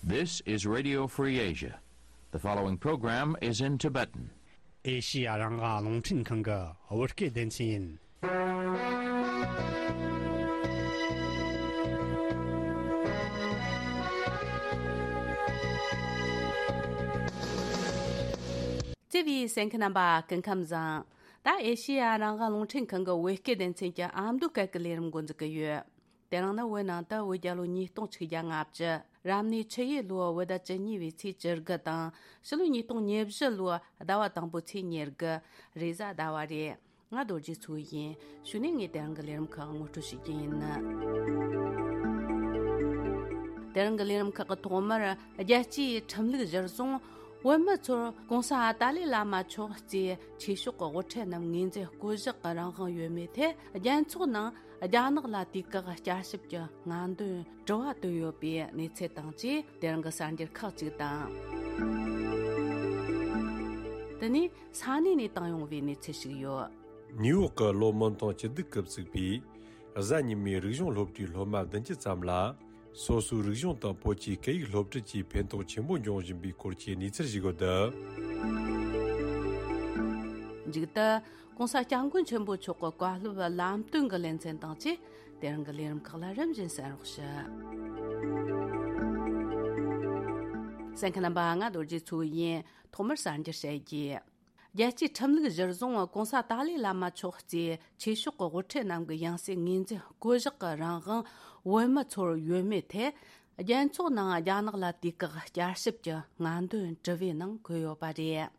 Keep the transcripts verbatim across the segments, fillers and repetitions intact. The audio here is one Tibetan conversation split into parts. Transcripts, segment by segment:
This is Radio Free Asia. The following program is in Tibetan. ཨེ་ཤི་ཡ་རང་དབང་རླུང་འཕྲིན་ཁང་གི་བོད་སྐད་སྡེ་ཚན་ཡིན། བརྩེ་བའི་གསན་མཁན་རྣམ་པ་སྐུ་ཁམས་བཟང་། ད་ཨེ་ཤི་ཡ་རང་དབང་རླུང་འཕྲིན་ཁང་གི་བོད་སྐད་སྡེ་ཚན་གྱི་ཨ་མདོ་སྐད་ཀྱི་ལས་རིམ་འགོ་འཛུགས་ཀྱི་ཡོད། དེ་རིང་ནི་བོད་ནང་དུ་བོད་རྒྱལ་ལོ་ཉིས་སྟོང་ཆིག་བརྒྱ་ལྔ་བཅུ། རབ་གནས་ཆུ་ཡོས་ལོའི་བོད་ཟླ་བཅུ་གཉིས་པའི་ཚེས་བཅུ་དགུ་དང་། ཕྱི་ལོ་ཉིས་སྟོང་ཉེར་བཞི་ལོའི་ཟླ་བ་དང་པོའི་ཚེས་ཉེར་དགུ། རེས་གཟའ་ཟླ་བ་རེད། ང་རྡོ་རྗེ་མཚོ་ཡིན། གཞུག་ནས་ངས་དེ་རིང་གི་ལས་རིམ་ཁག་ངོ་སྤྲོད་བྱེད་ཀྱི་ཡིན། དེ་རིང་གི་ལས་རིམ་ཁག་གི་ཐོག་མར། རྒྱལ་སྤྱིའི་ཁྲིམས་ལུགས་གཞིར་བཟུང་བོད་མི་ཚོར་༸གོང་ས་ཏཱ་ལའི་བླ་མ་མཆོག་གཙོས་ཆོས་ཕྱོགས་ཀྱི་དབུ་ཁྲིད་རྣམས་ངོས་འཛིན་བསྐོ་གཞག་གི་རང་དབང་ཡོད་མེད་ཐད། རྒྱལ་ཚོགས་ནང་རྒྱ་ནག་ལ་དུས་བཀག་བསྐྱར་ཞིབ་ཀྱི་སྔ་འདོན་དྲི་བ་བཏོན་ཡོད་པའི་གནས་ཚུལ་དང་བཅས། དེ་རིང་གི་གསར་འགྱུར་ཁག་ཅིག་དང་། དེ་ནས་ས་གནས་ནས་བཏང་ཡོང་བའི་གནས་ཚུལ་ཞིག་ཡོད། ནིའུ་ཡོག་གི་ལོ་སྨོན་ཐང་སྐྱིད་སྡུག་གིས་གཙོས་པའི་གཟའ་ཉི་མའི་རིག་གཞུང་སློབ་གྲྭའི་སློབ་མ་བདུན་ཅུ་ཙམ་ལ། སོ་སོའི་རིག་གཞུང་དང་བོད་ཀྱི་སྐད་ཡིག་སློབ་ཁྲིད་ཀྱིས་ཕན་ཐོགས་ཆེན་པོ་འབྱུང་བཞིན་པའི་སྐོར་གྱི་གནས་ཚུལ་ཞིག་ཡོད། མཇུག་ཏུ། ༸གོང་ས་༸སྐྱབས་མགོན་ཆེན་པོ་མཆོག་གི་བཀའ་སློབ་ལམ་སྟོན་གྱི་ལེ་ཚན་དང་བཅས། དེ་རིང་གི་ལས་རིམ་ཁག་ལ་རིམ་བཞིན་གསན་རོགས་ཞུ། གསན་མཁན་རྣམ་པ། ང་རྡོ་རྗེ་མཚོ་ཡིན། ཐོག་མར་གསར་འགྱུར་བཤད་རྒྱུ། རྒྱལ་སྤྱིའི་ཁྲིམས་ལུགས་གཞིར་བཟུང་༸གོང་ས་ཏཱ་ལའི་བླ་མ་མཆོག་གཙོས་ཆོས་ཕྱོགས་ཀྱི་དབུ་ཁྲིད་རྣམས་ཀྱི་ཡང་སྲིད་ངོས་འཛིན་བསྐོ་གཞག་གི་རང་དབང་བོད་མི་ཚོར་ཡོད་མེད་ཐད། རྒྱལ་ཚོགས་ནང་རྒྱ་ནག་ལ་དུས་བཀག་བསྐྱར་ཞིབ་ཀྱི་སྔ་འདོན་དྲི་བའི་ནང་འཁོད་ཡོད་པ་རེད།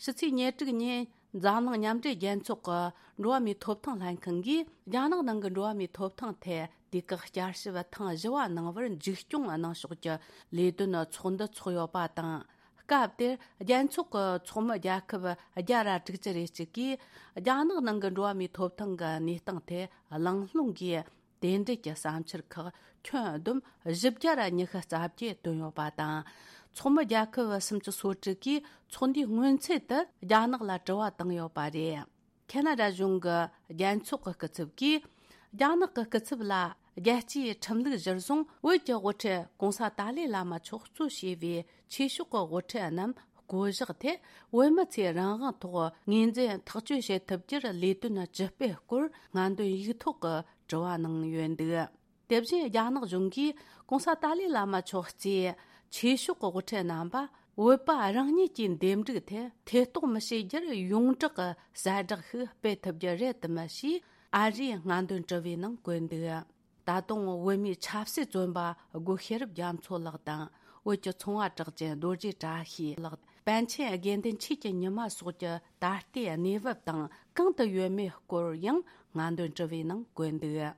ཕྱི་ཚེས་ཉེར་དྲུག་ཉིན་འཛམ་གླིང་མཉམ་འབྲེལ་རྒྱལ་ཚོགས་ཀྱི་འགྲོ་བ་མིའི་ཐོབ་ཐང་ལྷན་ཁང་གིས་རྒྱ་ནག་ནང་གི་འགྲོ་བ་མིའི་ཐོབ་ཐང་ཐད་དུས་བཀག་བསྐྱར་ཞིབ་ཐེངས་བཞི་བ་གནང་བར་མཇུག་སྐྱོང་གནང་ཕྱོགས་ཀྱི་ལས་དོན་ཚོགས་འདུ་འཚོགས་ཡོད་པ་དང་། སྐབས་དེར་རྒྱལ་ཚོགས་ཀྱི་ཚོགས་མི་རྒྱལ་ཁབ་བརྒྱ་ར་དྲུག་ཅུ་རེ་གཅིག་གིས་རྒྱ་ནག་ནང་གི་འགྲོ་བ་མིའི་ཐོབ་ཐང་གི་གནས་སྟངས་ཐད་གླེང་སློང་གིས། དེ་འབྲེལ་གྱི་བསམ་འཆར་ཁག་ཁྱོན་བསྡོམས་བཞི་བརྒྱ་ར་ཉི་ཤུ་རྩ་བརྒྱད་བཏོན་ཡོད་པ་དང་། ཚོགས་མི་རྒྱལ་ཁབ་སུམ་ཅུ་སོ་དྲུག་གིས་ཚོགས་འདུའི་སྔོན་ཚུད་དུ་རྒྱ་ནག་ལ་དྲི་བ་བཏང་ཡོད་པ་རེད། ཁེ་ན་ཌ་གཞུང་གི་རྒྱལ་ཚོགས་ཀྱི་སྐུ་ཚབ་ཀྱིས། རྒྱ་ནག་གི་སྐུ་ཚབ་ལ་རྒྱལ་སྤྱིའི་ཁྲིམས་ལུགས་གཞིར་བཟུང་བོད་ཀྱི་དབུ་ཁྲིད་༸གོང་ས་ཏཱ་ལའི་བླ་མ་མཆོག་གཙོས་བྱས་པའི་ཆོས་ཕྱོགས་ཀྱི་དབུ་ཁྲིད་རྣམས་བསྐོ་གཞག་ཐད། བོད་མི་ཚོས་རང་དབང་ཐོག་ངོས་འཛིན་ཐག་གཅོད་བྱེད་ཐུབ་རྒྱུར་ལས་དོན་ཇི་སྤེལ་སྐོར་སྔ་འདོན་ཡིག་ཐོག་གི་དྲི་བ་གནང་ཡོད་འདུག་དེ་བཞིན་རྒྱ་ནག་གཞུང་གིས་༸གོང་ས་ཏཱ་ལའི་བླ་མ་མཆོག་གཙོས་ཆོས་ཕྱོགས་ཀྱི་དབུ་ཁྲིད་རྣམ་པ་བོད་པ་རང་ཉིད་ཀྱི་འདེམས་སྒྲུག་ཐད་ཐེ་གཏོགས་མི་བྱེད་རྒྱུར་ཡོངས་གྲགས་ཀྱི་གསལ་བསྒྲགས་ཤིག་སྤེལ་ཐུབ་རྒྱུ་རེད་དམ་ཞེས་ཨ་རིའི་སྔ་འདོན་དྲི་བའི་ནང་བཀོད་འདུག་ད་དུང་བོད་མིའི་ཆབ་སྲིད་བཙོན་པ་སྒོ་ཤེས་རབ་རྒྱ་མཚོ་ལགས་དང་། བོད་ཀྱི་ཚོང་བ་གྲགས་ཅན་རྡོ་རྗེ་བཀྲ་ཤིས་ལགས། པཎ་ཆེན་དགེ་འདུན་ཆོས་ཀྱི་ཉི་མ་སོགས་ཀྱི་ད་ལྟའི་གནས་བབ་དང་གང་དུ་ཡོད་མེད་སྐོར་ཡང་སྔ་འདོན་དྲི་བའི་ནང་བཀོད་འདུག་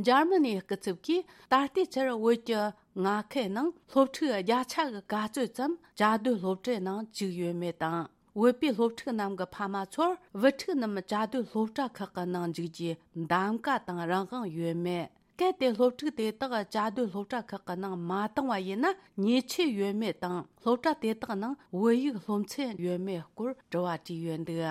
འཇར་མ་ནིའི་སྐུ་ཚབ་ཀྱིས་ད་ལྟའི་ཆར་བོད་ཀྱི་མངའ་ཁུལ་ནང་སློབ་ཕྲུག་བརྒྱ་ཆ་གི་ག་ཚོད་ཙམ་བཅའ་སྡོད་སློབ་གྲྭའི་ནང་བཅུག་ཡོད་མེད་དང་། བོད་པའི་སློབ་ཕྲུག་རྣམས་ཀྱི་ཕ་མ་ཚོར་བུ་ཕྲུག་རྣམས་བཅའ་སྡོད་སློབ་གྲྭ་ཁག་གི་ནང་འཇུག་རྒྱུའི་གདམ་ག་དང་རང་དབང་ཡོད་མེད། གལ་ཏེ་སློབ་ཕྲུག་དེ་དག་བཅའ་སྡོད་སློབ་གྲྭ་ཁག་གི་ནང་མ་བཏང་བ་ཡིན་ན་ཉེས་ཆད་ཡོད་མེད་དང་སློབ་གྲྭ་དེ་དག་ནང་བོད་ཡིག་སློབ་ཚན་ཡོད་མེད་སྐོར་དྲི་བ་དྲིས་ཡོད་འདུག་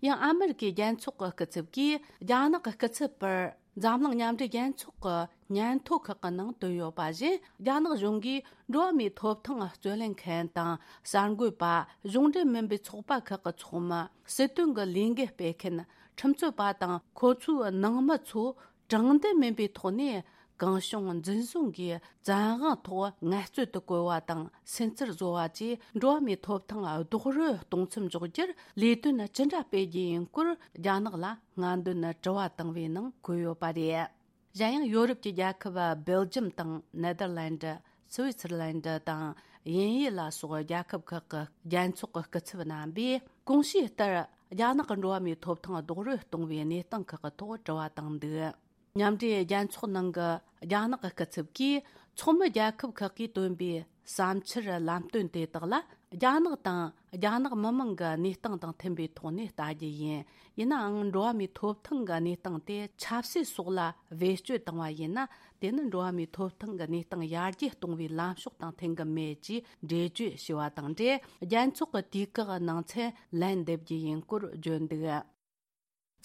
ཡང་ཨ་མི་རི་ཀའི་རྒྱལ་ཚོགས་ཀྱི་སྐུ་ཚབ་ཀྱིས་རྒྱ་ནག་གི་སྐུ་ཚབ་པར་འཛམ་གླིང་མཉམ་འབྲེལ་རྒྱལ་ཚོགས་ཀྱི་སྙན་ཐོ་ཁག་གི་ནང་བཏོན་ཡོད་པ་བཞིན། རྒྱ་ནག་གཞུང་གིས་འགྲོ་བ་མིའི་ཐོབ་ཐང་རྩོད་ལེན་མཁན་དང་གསར་འགོད་པ། གཞུང་འབྲེལ་མིན་པའི་ཚོགས་པ་ཁག་གི་ཚོགས་མི། སྲིད་དོན་གྱི་ལས་འགུལ་སྤེལ་མཁན། ཁྲིམས་རྩོད་པ་དང་ཁོ་ཚོའི་ནང་མི་ཚོ། དྲང་བདེན་མིན་པའི་ཐོག་ནས་གང་བྱུང་འཛིན་བཟུང་གིས་བཙན་དབང་ཐོག་ངལ་རྩོལ་དུ་བཀོལ་བ་དང་སུན་གཙེར་བཟོ་བ་བཅས་འགྲོ་བ་མིའི་ཐོབ་ཐང་རྡོག་རོལ་གཏོང་མཚམས་འཇོག་རྒྱུར་ལས་དོན་ཅི་འདྲ་སྤེལ་རྒྱུ་ཡིན་སྐོར་རྒྱ་ནག་ལ་སྔ་འདོན་དྲི་བ་བཏང་བའི་ནང་འཁོད་ཡོད་པ་རེད། གཞན་ཡང་ཡོ་རོབ་ཀྱི་རྒྱལ་ཁབ་སྦེལ་ཇམ་དང་ནེ་དར་ལན་ཌི། སུའི་ཙེར་ལན་ཌི་དང་དབྱིན་ཡུལ་ལ་སོགས་རྒྱལ་ཁབ་ཁག་གི་རྒྱལ་ཚོགས་ཀྱི་སྐུ་ཚབ་རྣམ་པས་གོང་ཞུས་ལྟར་རྒྱ་ནག་གི་འགྲོ་བ་མིའི་ཐོབ་ཐང་རྡོག་རོལ་གཏོང་བའི་གནས་སྟངས་ཁག་གི་ཐོག་དྲི་བ་བཏང་འདུག་མཉམ་འབྲེལ་རྒྱལ་ཚོགས་ནང་གི་རྒྱ་ནག་གི་སྐུ་ཚབ་ཀྱིས་ཚོགས་མི་རྒྱལ་ཁབ་ཁག་གིས་བཏོན་པའི་བསམ་འཆར་ལམ་སྟོན་དེ་དག་ལ་རྒྱ་ནག་དང་རྒྱ་ནག་མི་དམངས་ཀྱི་གནས་སྟངས་དང་མཐུན་པའི་ཐོག་ནས་ལྟ་རྒྱུ་ཡིན། ཡིན་ནའང་འགྲོ་བ་མིའི་ཐོབ་ཐང་གི་གནས་སྟངས་དེ་ཆབ་སྲིད་སོགས་ལ་བེད་སྤྱོད་བཏང་བ་ཡིན་ན། དེ་ནི་འགྲོ་བ་མིའི་ཐོབ་ཐང་གི་གནས་སྟངས་ཡར་རྒྱས་གཏོང་བའི་ལམ་ཕྱོགས་དང་མཐུན་གྱི་མེད་ཅེས་འགྲེལ་བརྗོད་ཞུས་པ་དང་འབྲེལ། རྒྱལ་ཚོགས་ཀྱི་དུས་བཀག་ནང་ཚུན་ལན་འདེབས་རྒྱུ་ཡིན་སྐོར་བརྗོད་འདུག་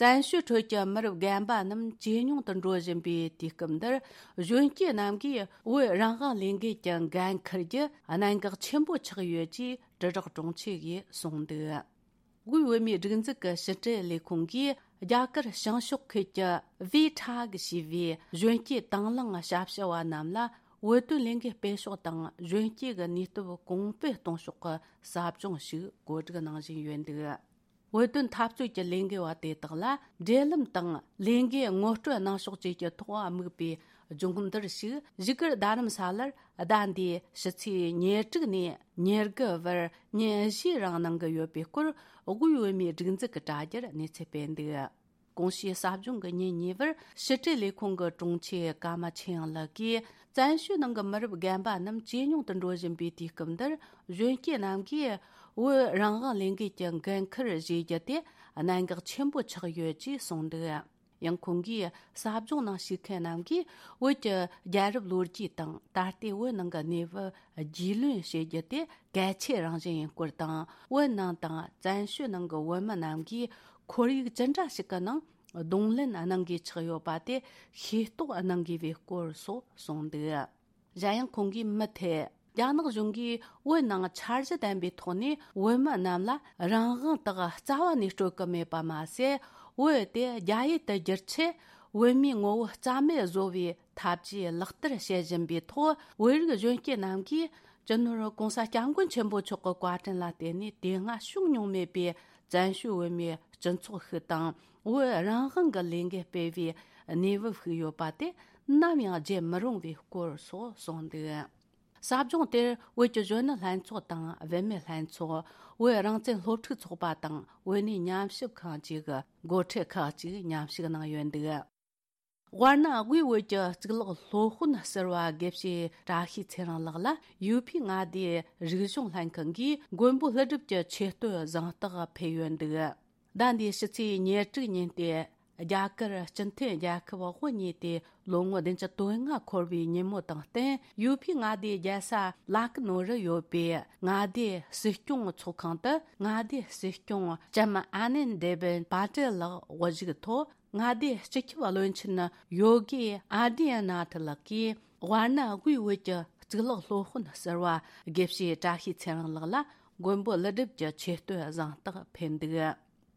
བཙན་བྱོལ་ཁྲོད་ཀྱི་མི་རབས་རྒན་པ་རྣམས་ཇེ་ཉུང་དུ་འགྲོ་བཞིན་པའི་དུས་སྐབས་འདིར། གཞོན་སྐྱེས་རྣམས་ཀྱིས་བོད་རང་དབང་ལས་འགུལ་གྱི་འགན་འཁུར་རྒྱུ་གནད་འགག་ཆེན་པོ་ཆགས་ཡོད་ཅེས་དྲིལ་བསྒྲགས་དྲུང་ཆེ་ཡིས་གསུངས་འདུག་དབུས་བོད་མིའི་སྒྲིག་འཛུགས་ཀྱི་ཕྱི་དྲིལ་ལས་ཁུངས་ཀྱིས། རྒྱ་གར་བྱང་ཕྱོགས་ཁུལ་གྱི་ཝི་ཁྲ་གི་ཞེས་པའི་གཞོན་སྐྱེས་དང་བླངས་ཞབས་ཞུ་བ་རྣམས་ལ། བོད་དོན་ལས་འགུལ་སྤེལ་ཕྱོགས་དང་། གཞོན་སྐྱེས་ཀྱི་ནུས་སྟོབས་གོང་སྤེལ་གཏོང་ཕྱོགས་ཀྱི་ཟབ་སྦྱོང་ཞིག་གོ་སྒྲིག་གནང་བཞིན་ཡོད་འདུག་བོད་དོན་འཐབ་རྩོད་ཀྱི་ལས་འགུལ་བ་དེ་དག་ལ། འབྲེལ་ལམ་དང་ལས་འགུལ་ངོ་སྤྲོད་གནང་ཕྱོགས་བཅས་ཀྱི་ཐོག་དམིགས་པའི་སྦྱོང་བརྡར་ཞིག་བཞུགས་སྒར་རྡ་རམ་ས་ལར་ཟླ་འདིའི་ཕྱི་ཚེས་ཉེར་དྲུག་ནས་ཉེར་དགུ་བར་ཉིན་བཞིའི་རིང་གནང་གི་ཡོད་པའི་སྐོར། དབུས་བོད་མིའི་སྒྲིག་འཛུགས་ཀྱི་དྲ་རྒྱར་གནས་ཚུལ་སྤེལ་འདུག་གོང་ཞུས་ཟབ་སྦྱོང་གི་ཉིན་གཉིས་པར་ཕྱི་དྲིལ་ལས་ཁུངས་ཀྱི་དྲུང་ཆེ་ཀརྨ་ཆོས་དབྱངས་ལགས་ཀྱིས། བཙན་བྱོལ་ནང་གི་མི་རབས་རྒན་པ་རྣམས་ཇེ་ཉུང་དུ་འགྲོ་བཞིན་པའི་དུས་སྐབས་འདིར། གཞོན་སྐྱེས་རྣམས་ཀྱིས་བོད་རང་དབང་ལས་འགུལ་གྱི་འགན་འཁུར་བཞེས་རྒྱུ་དེ་གནད་འགག་ཆེན་པོ་ཆགས་ཡོད་ཅེས་གསུངས་འདུག་ཡང་ཁོང་གིས་ཟབ་སྦྱོང་ནང་ཞུགས་མཁན་རྣམས་ཀྱིས་བོད་ཀྱི་རྒྱལ་རབས་ལོ་རྒྱུས་དང་། ད་ལྟའི་བོད་ནང་གི་གནས་བབ་རྒྱུས་ལོན་བྱེད་རྒྱུ་དེ་གལ་ཆེ་རང་བཞིན་ཡིན་སྐོར་དང་། བོད་ནང་དང་བཙན་བྱོལ་ནང་གི་བོད་མི་རྣམས་ཀྱིས་ཁོར་ཡུག་ཅི་འདྲ་ཞིག་གི་ནང་གདོང་ལེན་གནང་དགོས་ཆགས་ཡོད་པ་དེ་ཤེས་རྟོགས་གནང་དགོས་པའི་སྐོར་སོགས་གསུངས་འདུག་གཞན་ཡང་ཁོང་གིས་མུ་མཐུད། རྒྱ་ནག་གཞུང་གིས་བོད་ནང་འཆར་གཞི་ལྡན་པའི་ཐོག་ནས་བོད་མི་རྣམས་ལ་རང་དབང་དག་རྩ་བ་ནས་སྤྲོད་ཀྱི་མེད་པ་མ་ཟད། བོད་དེ་རྒྱ་ཡུལ་དུ་བསྒྱུར་ཆེད་བོད་མིའི་ངོ་བོ་རྩ་མེད་བཟོ་བའི་ཐབས་ཇུས་ལག་བསྟར་བྱེད་བཞིན་པའི་ཐོག་བོད་རིགས་གཞོན་སྐྱེས་རྣམས་ཀྱིས་སྤྱི་ནོར་༸གོང་ས་༸སྐྱབས་མགོན་ཆེན་པོ་མཆོག་གི་བཀའ་དྲིན་ལ་བརྟེན་ནས། དེ་སྔ་བྱུང་མྱོང་མེད་པའི་བཙན་བྱོལ་བོད་མིའི་སྤྱི་ཚོགས་ཤིག་དང་། བོད་རང་དབང་གི་ལས་འགུལ་སྤེལ་བའི་གནས་བབ་ཤིག་ཡོད་པ་དེ་ནམ་ཡང་བརྗེད་མི་རུང་བའི་སྐོར་སོགས་གསུངས་འདུག་ཟབ་སྦྱོང་དེར་བོད་ཀྱི་གཞོན་ནུ་ལྷན་ཚོགས་དང་། བུད་མེད་ལྷན་ཚོགས། བོད་རང་བཙན་སློབ་ཕྲུག་ཚོགས་པ་དང་། བོད་གནས་ཉམས་ཞིབ་ཁང་བཅས་ཀྱི་འགོ་ཁྲིད་ཁག་ཅིག་མཉམ་ཞུགས་གནང་ཡོད་འདུག་དབར་ན་དབུས་བོད་ཀྱི་གཙུག་ལག་སློབ་དཔོན་ཟུར་པ་དགེ་བཤེས་བཀྲ་ཤིས་ཚེ་རིང་ལགས་ལ་ཡུ་ཕི་མངའ་སྡེའི་རིག་གཞུང་ལྷན་ཁང་གིས་མགོན་པོ་ཀླུ་སྒྲུབ་ཀྱི་ཆེ་བསྟོད་གཟེངས་རྟགས་ཕུལ་ཡོད་འདུག་ཟླ་འདིའི་ཕྱི་ཚེས་ཉེར་དྲུག་ཉིན་ཏེ། རྒྱ་གར་སྤྱི་མཐུན་རྒྱལ་ཁབ་དབུ་བརྙེས་ཏེ་ལོ་ངོ་བདུན་ཅུ་དོན་ལྔ་འཁོར་བའི་ཉིན་མོ་དང་བསྟུན། ཡུ་ཕི་མངའ་སྡེའི་རྒྱལ་ས་ལ་ཀི་ནོ་རུ་ཡོད་པའི་མངའ་སྡེའི་སྲིད་སྐྱོང་ཚོགས་ཁང་དུ། མངའ་སྡེའི་སྲིད་སྐྱོང་ལྕམ་ཨ་ནན་དེ་བིན་པ་ཏེལ་ལགས་དབུ་བཞུགས་ཐོག་མངའ་སྡེའི་སྤྱི་ཁྱབ་བློན་ཆེན་ཡོ་གི་ཨ་དི་ཡ་ན་ཐི་ལགས་ཀྱིས། དབར་ན་དབུས་བོད་ཀྱི་གཙུག་ལག་སློབ་དཔོན་ཟུར་པ་དགེ་བཤེས་བཀྲ་ཤིས་ཚེ་རིང་ལགས་ལ་མགོན་པོ་ཀླུ་སྒྲུབ་ཀྱི་ཆེ་བསྟོད་གཟེངས་རྟགས་ཕུལ་འདུག་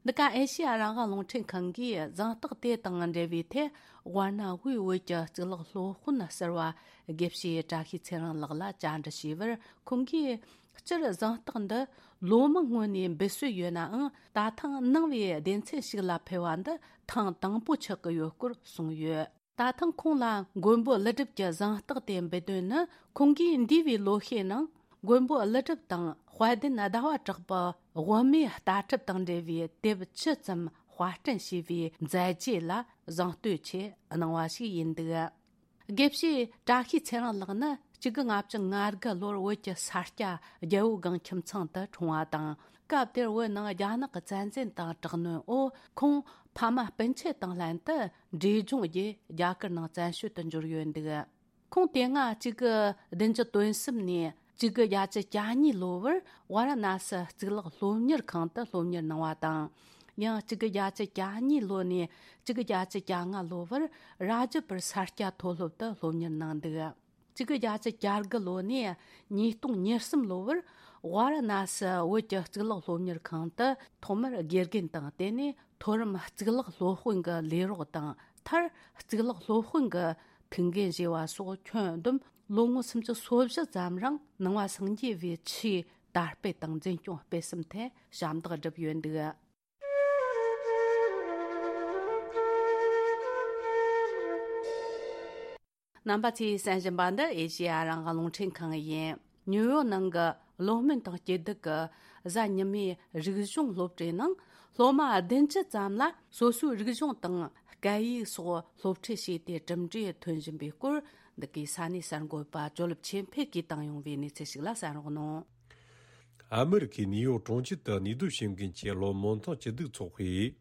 འདི་ག་ཨེ་ཤེ་ཡ་རང་དབང་རླུང་འཕྲིན་ཁང་གིས་གཟེངས་རྟགས་དེ་དང་འབྲེལ་བའི་ཐད། དབར་ན་དབུས་བོད་ཀྱི་གཙུག་ལག་སློབ་དཔོན་ཟུར་པ་དགེ་བཤེས་བཀྲ་ཤིས་ཚེ་རིང་ལགས་ལ་བཅར་འདྲི་ཞུས་པར། ཁོང་གིས། སྤྱིར་གཟེངས་རྟགས་འདི་ལོ་མང་སྔོན་ནས་འབུལ་སྲོལ་ཡོད་ནའང་། ད་ཐེངས་ནང་པའི་སྡེ་ཚན་ཞིག་ལ་ཕུལ་བ་འདི་ཐེངས་དང་པོ་ཆགས་ཀྱི་ཡོད་སྐོར་གསུངས་ཡོད། ད་ཐེངས་ཁོང་ལ་མགོན་པོ་ཀླུ་སྒྲུབ་ཀྱི་གཟེངས་རྟགས་དེ་འབུལ་དོན་ནི། ཁོང་གིས་འདས་པའི་ལོ་ཤས་ནང་མགོན་པོ་ཀླུ་སྒྲུབ་དང་དཔལ་ལྡན་ཟླ་བ་གྲགས་པའི་དབུ་མའི་ལྟ་གྲུབ་དང་འབྲེལ་བའི་དེབ་བཅུ་ཙམ་དཔར་སྐྲུན་བྱས་པའི་མཛད་རྗེས་ལ་གཟེངས་བསྟོད་ཆེད་གནང་བ་ཞིག་ཡིན་འདུག་དགེ་བཤེས་བཀྲ་ཤིས་ཚེ་རིང་ལགས་ནི་གཅིག་དགུ་ལྔ་བཅུ་ང་དགུ་ལོར་བོད་ཀྱི་ས་སྐྱ་རྒྱལ་པོ་སྒང་ཁྱིམ་ཚང་དུ་འཁྲུངས་པ་དང་། སྐབས་དེར་བོད་ནང་རྒྱ་ནག་གི་བཙན་འཛུལ་དང་དྲག་གནོན་འོག་ཁོང་ཕ་མ་སྤུན་མཆེད་དང་ལྷན་དུ་འབྲས་ལྗོངས་བརྒྱུད་རྒྱ་གར་ནང་བཙན་བྱོལ་དུ་འབྱོར་ཡོད་འདུག་ཁོང་དེ་སྔ་གཅིག་དགུ་བདུན་ཅུ་དོན་གསུམ་ནས་གཅིག་དགུ་བརྒྱད་ཅུ་གྱ་གཉིས་ལོ་བར་ཝཱ་ར་ཎ་སི་གཙུག་ལག་སློབ་གཉེར་ཁང་དུ་སློབ་གཉེར་གནང་བ་དང་། ཡང་གཅིག་དགུ་བརྒྱད་ཅུ་གྱ་གཉིས་ལོ་ནས་གཅིག་དགུ་བརྒྱད་ཅུ་གྱ་ལྔ་ལོ་བར་རཱ་ཇ་པུར་ས་སྐྱ་མཐོ་སློབ་ཏུ་སློབ་གཉེར་གནང་འདུག་གཅིག་དགུ་བརྒྱད་ཅུ་གྱ་དགུ་ལོ་ནས་ཉིས་སྟོང་ཉེར་གསུམ་ལོ་བར་ཝཱ་ར་ཎ་སི་བོད་ཀྱི་གཙུག་ལག་སློབ་གཉེར་ཁང་དུ་ཐོག་མར་དགེ་རྒན་དང་། དེ་ནས་མཐོ་རིམ་གཙུག་ལག་སློབ་དཔོན་གྱི་ལས་རོགས་དང་། མཐར་གཙུག་ལག་སློབ་དཔོན་གྱི་ཐུགས་འགན་བཞེས་པ་སོགས་ཁྱོན་བསྡོམས་ལོ་ངོ་སུམ་ཅུ་སོ་བཞི་ཙམ་རིང་ནང་པ་སངས་རྒྱས་པའི་ཆོས་དར་སྤེལ་དང་འཛིན་སྐྱོང་སྤེལ་གསུམ་ཐད་ཞབས་འདེགས་བསྒྲུབས་ཡོད་འདུག་རྣམ་པ་ཚོས་གསན་བཞིན་པ་འདི་ཨེ་ཤེ་ཡ་རང་དབང་རླུང་འཕྲིན་ཁང་ཡིན། ནིའུ་ཡོག་ནང་གི་གློག་སྨན་དང་སྐྱིད་སྡུག་གི་གཟའ་ཉི་མའི་རིག་གཞུང་སློབ་གྲྭའི་ནང་སློབ་མ་བདུན་ཅུ་ཙམ་ལ་སོ་སོའི་རིག་གཞུང་དང་སྐད་ཡིག་སོགས་སློབ་ཁྲིད་བྱས་ཏེ་གྲུབ་འབྲས་ཐོན་བཞིན་པའི་སྐོར། འདི་གའི་ས་གནས་གསར་འགོད་པ་ཇོ་ལེབ་ཆོས་འཕེལ་གྱིས་བཏང་ཡོང་བའི་གནས་ཚུལ་ཞིག་ལ་གསན་རོགས་གནང་། ཨ་མི་རི་ཀའི་ནིའུ་ཡོག་གྲོང་ཁྱེར་དུ་གནས་སྡོད་བྱེད་མཁན་གྱི་སློབ་མ་མཐོང་སྐྱིད་སྡུག་ཚོགས་པས།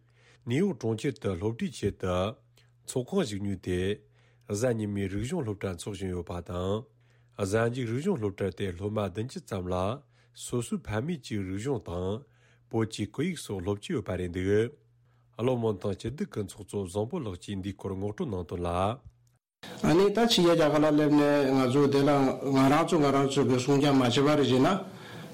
ནིའུ་ཡོག་གྲོང་ཁྱེར་དུ་སློབ་ཁྲིད་ཆེད་དུ་ཚོགས་ཁང་ཞིག་ཉོས་ཏེ། གཟའ་ཉི་མའི་རིག་གཞུང་སློབ་གྲྭ་འཚོགས་བཞིན་ཡོད་པ་དང་། གཟའ་མཇུག་རིག་གཞུང་སློབ་གྲྭ་དེ་སློབ་མ་བདུན་ཅུ་ཙམ་ལ་སོ་སོའི་ཕ་མེས་ཀྱི་རིག་གཞུང་དང་བོད་ཀྱི་སྐད་ཡིག་སོགས་སློབ་ཀྱི་ཡོད་པ་རེད་འདུག་བློ་སྨོན་ཐང་སྐྱིད་སྡུག་གི་ཚོགས་གཙོ་བཟང་པོ་ལགས་ཀྱིས་འདིའི་སྐོར་ངོ་སྤྲོད་གནང་དོན་ལ། ཨ་ནི་ད་ཕྱི་རྒྱལ་རྒྱ་གར་ལ་སླེབས་ནས་ང་ཚོ་དེ་ལ་ང་རང་ཚོ་ང་རང་ཚོ་གི་སྲུང་སྐྱོབ་མ་བྱས་པ་རེད་ཟེར་ན།